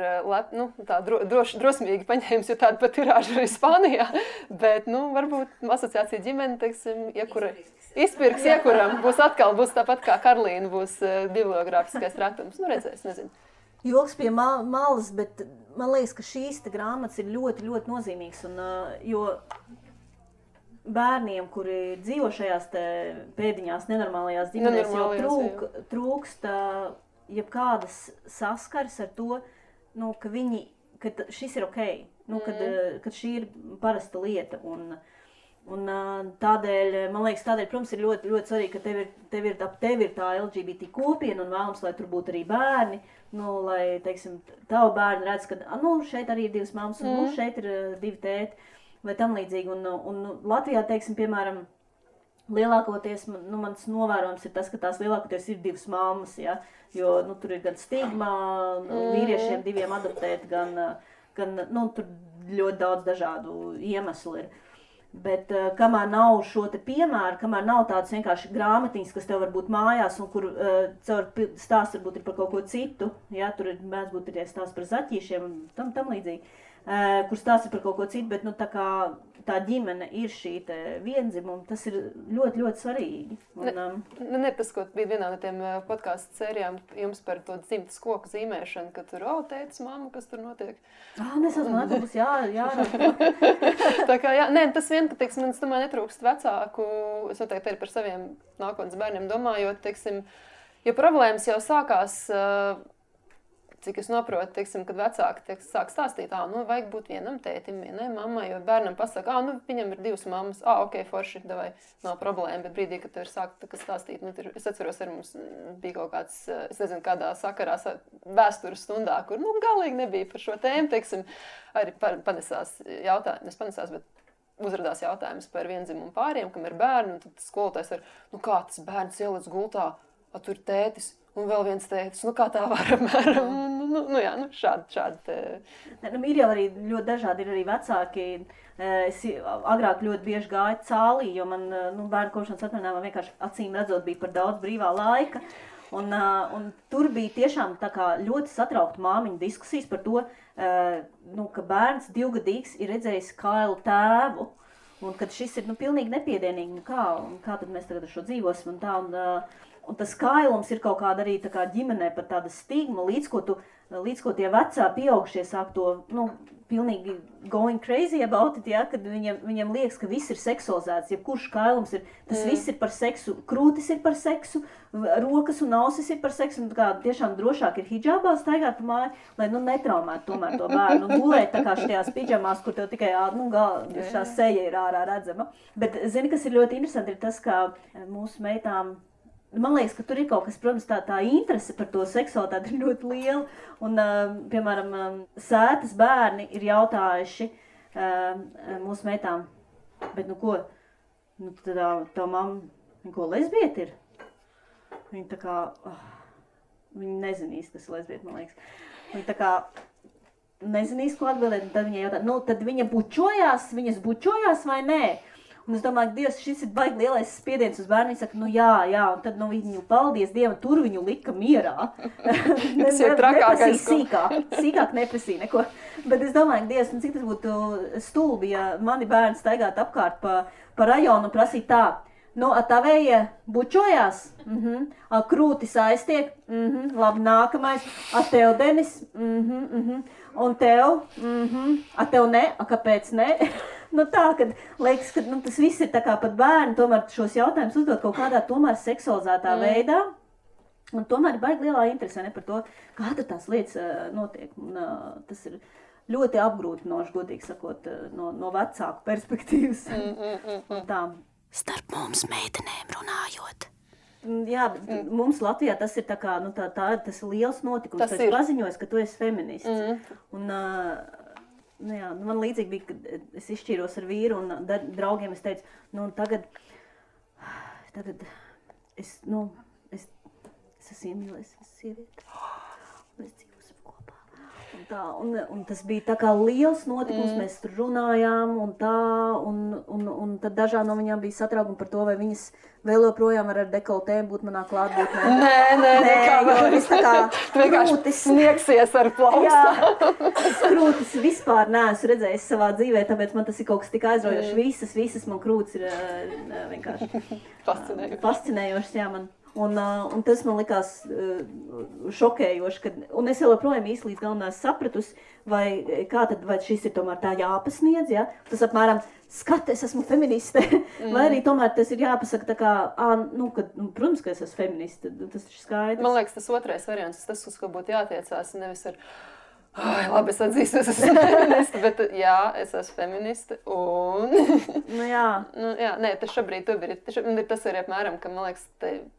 tā drosmīgi paņēmis, jo tāda pat tirāža arī Spānijā, bet, varbūt asociācija ģimene, teiksim, izpirks iekuram, būs tāpat kā Karlīna, būs bibliogrāfiskais ratums, redzēs, nezinu. Joks pie malas, bet man liekas, ka šīs te grāmatas ir ļoti, ļoti nozīmīgas, un, jo bērniem, kuri dzīvo šajās te pēdiņās nenormālajās ģimenēs, jau trūkst jebkādas saskares ar to, ka šis ir okei, kad šī ir parasta lieta, un tādēļ, man liekas, protams, ir ļoti, ļoti svarīgi, ka tev ir tā LGBT kopiena un vēlams, lai tur būtu arī bērni, lai, teiksim, tavu bērni redz, ka, šeit arī ir 2 mammas, un šeit ir 2 tēti, vai tam līdzīgi, un Latvijā, teiksim, piemēram, lielākoties, mans novērojums ir tas, ka tās lielākoties ir 2 mammas, ja, jo, tur ir gan stigma, vīriešiem 2 adoptēt, gan, tur ļoti daudz dažādu iemeslu ir. Bet kamēr nav šo te piemēru, kamēr nav tādas vienkārši grāmatiņas, kas tev var būt mājās un kur caur stāsts varbūt ir par kaut ko citu, ja, tur ir mēdz būt tie stāsts par zaķīšiem un tam līdzīgi, kur stāsts ir par kaut ko citu, bet tā kā tā ģimene ir šī te vienzimuma, tas ir ļoti, ļoti svarīgi. Tas, ko bija vienā no tiem podcastu sērijām jums par to dzimtas koku zīmēšanu, ka tur, tētis, mamma, kas tur notiek? Nesasmāt, būs jā. Tā kā, tas vien, ka, teiksim, es domāju, netrūkst vecāku, es noteikti arī par saviem nākotnes bērniem domājot, teiksim, ja problēmas jau sākās cik es noprotu, teiksim, kad vecāki sāk stāstīt, vajag būt vienam tētim, vienai mammai, jo bērnam pasaka, viņam ir 2 mammas, ok, forši, davai, nav problēma, bet brīdī, kad tu ir sākt stāstīt, es atceros, ar mums bija kaut kāds, es nezinu, kādā sakarā vēstures stundā, kur, galīgi nebija par šo tēmu, teiksim, arī panesās jautājums, bet uzradās jautājums par viendzimumu pāriem, kam ir bērni, un tad skolotājs ar, kā tas bērns ieliec gultā, tur tētis, un vēl viens tētis, kā tā var apmēram, šādi. Ir jau arī ļoti dažādi, ir arī vecāki. Es agrāk ļoti bieži gāju cālī, jo man bērnu kopšanas atvaļinājumā vienkārši acīm redzot bija par daudz brīvā laika. Un tur bija tiešām tā kā ļoti satraukta māmiņu diskusijas par to, ka bērns 2-gadīgs ir redzējis kailu tēvu, un kad šis ir pilnīgi nepiedienīgi, kā tad mēs tagad ar šo dzīvosim un tā. Un tas kailums ir kaut kāda arī tā kā ģimenē par tāda stigma, līdz ko tie vecā pieaugušie sāk to, pilnīgi going crazy about it, ja, kad viņiem liekas, ka viss ir seksualizēts, jebkurš kailums ir, tas viss ir par seksu, krūtis ir par seksu, rokas un ausis ir par seksu, un kā tiešām drošāk ir hidžābā staigāt pa māju, lai, netraumētu tomēr to bērnu, un gulēt tā kā šajās pidžamās, kur tev tikai, šā seja ir ārā redzama. Bet, zini, kas ir ļoti interesanti, ir tas, ka mūsu meitām, man liekas, ka tur ir kaut kas, protams, tā interese par to seksualitāti ir ļoti liela. Un, piemēram, Sētas bērni ir jautājuši mūsu meitām, bet ko? Tā mamma, ko lesbieta ir? Viņa tā kā, viņa nezinīs, kas ir lesbieta, man liekas. Viņa tā kā nezinīs, ko atbildēt, un tad viņa jautā, tad viņas bučojās vai nē? Un es domāju, ka Dievs, šis ir baigi lielais spiediens uz bērnu. Viņi saka, jā, un tad viņu, paldies Dievam, tur viņu lika mierā. Tas ir trakākais. Sīkāk neprasīja neko. Bet es domāju, ka Dievs, cik tas būtu stulbi, ja mani bērni staigātu apkārt pa rajonu un prasītu tā. Tavēja bučojās, krūtis aiztiek, labi, nākamais, tev, Denis, un tev, tev ne, kāpēc ne? Tā, kad liekas, ka tas viss ir tā kā pat bērni, tomēr šos jautājumus uzdot kaut kādā tomēr seksualizētā veidā. Un tomēr ir baigi lielā interese par to, kā tās lietas notiek. Un, tas ir ļoti apgrūtinoši, godīgi sakot, no vecāku perspektīvas. Tā. Starp mums meitenēm runājot. Jā, bet mums Latvijā tas ir tā kā, tas ir liels notikums. Tas ir paziņojis, ka tu esi feminists. Un, man līdzīgi bija, kad es izšķīros ar vīru un draugiem es teicu, tagad es esmu iemīlēs sievieti, mēs dzīvosim kopā. Un tas bija tā kā liels notikums, mēs tur runājām un tā, un tad dažām no viņām bija satraukumi par to, vai viņas vēl joprojām ar dekoltēm būt manā klātbūtnē. Nē, jo es tā kā krūtis sniegsies ar plaustā. Jā, es krūtis vispār neesmu redzējis savā dzīvē, tāpēc man tas ir kaut kas tik aizraujošs. Visas man krūtis ir vienkārši fascinējošas, jā, man. Un tas man likās šokējoši, un es joprojām īsti līdz galam neesmu sapratusi, vai šis ir tomēr tā jāpasniedz, ja? Tas apmēram, es esmu feministe, vai arī tomēr tas ir jāpasaka tā kā, protams, ka es esmu feministe, tas ir skaidrs. Man liekas, tas otrais variants, tas, uz ko būtu jātiecās, nevis ar labi, es atzīstu, es esmu feministe, bet jā, es esmu feministe, un... tas šobrīd ir tas arī apmēram, ka, man liekas,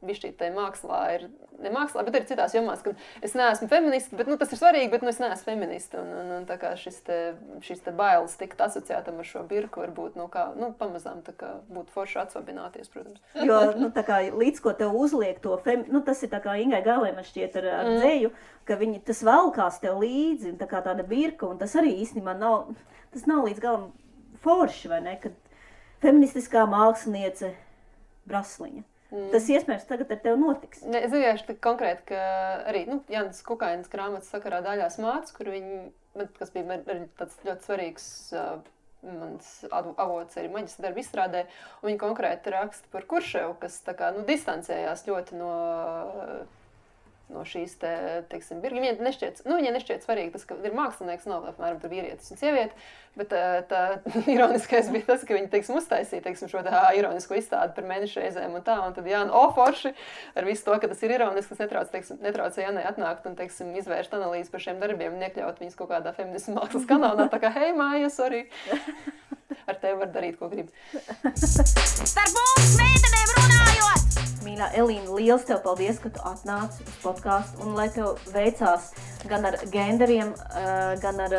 bišķīt tai mākslā ir, ne mākslā, bet arī citās jomās, ka es neesmu feministe, bet, tas ir svarīgi, bet, es neesmu feministe, un tā kā šis te bailes tikt asociētam ar šo birku, varbūt, pamazām tā kā būtu forši atsvabināties, protams. Jo, tā kā līdz ko tev uzliek to tas ir tā kā Ingai Galē man šķiet ar dzēju, ka tas valkās tev līdzi, tā kā tāda birka, un tas arī īstenībā nav līdz galam forši, vai ne, kad feministiskā māksliniece Brasliņa. Tas iespējams tagad ar tevi notiks. Es vienkārši konkrēti, ka arī, Jānis Kukainas grāmatas sakarā Daļās mātes, kur kas bija arī tāds ļoti svarīgs mans avots arī maģistra darba izstrādē, un viņi konkrēti raksta par Kurševu, kas tā kā, distancējās ļoti no no šīs teiksim, viņai nešķiet svarīgi tas, ka ir mākslinieks, nav apmēram tur vīrietis un sieviete, bet tā ironiskais bija tas, ka viņi, teiksim, uztaisīja, teiksim, šo ironisko izstādi par mēnešu reizēm un tā, un tad Jāna, forši, ar visu to, ka tas ir ironiski, tas netraucē Jānai atnākt un, teiksim, izvērst analīzi par šiem darbiem un iekļaut viņus kaut kādā feminismu mākslas kanālā, tā kā, hei, māja, sorry. Ar tevi var darīt, ko grib. Starp mums meitenēm runājot! Mīļā Elīna, liels tev paldies, ka tu atnāci uz podcastu un lai tev veicās gan ar genderiem, gan ar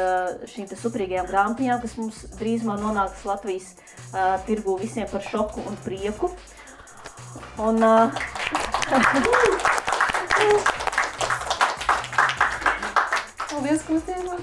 šīm te superīgajām grāmatiņām, kas mums drīzumā nonāks Latvijas tirgū visiem par šoku un prieku. Un... Paldies, ka mums iemāt!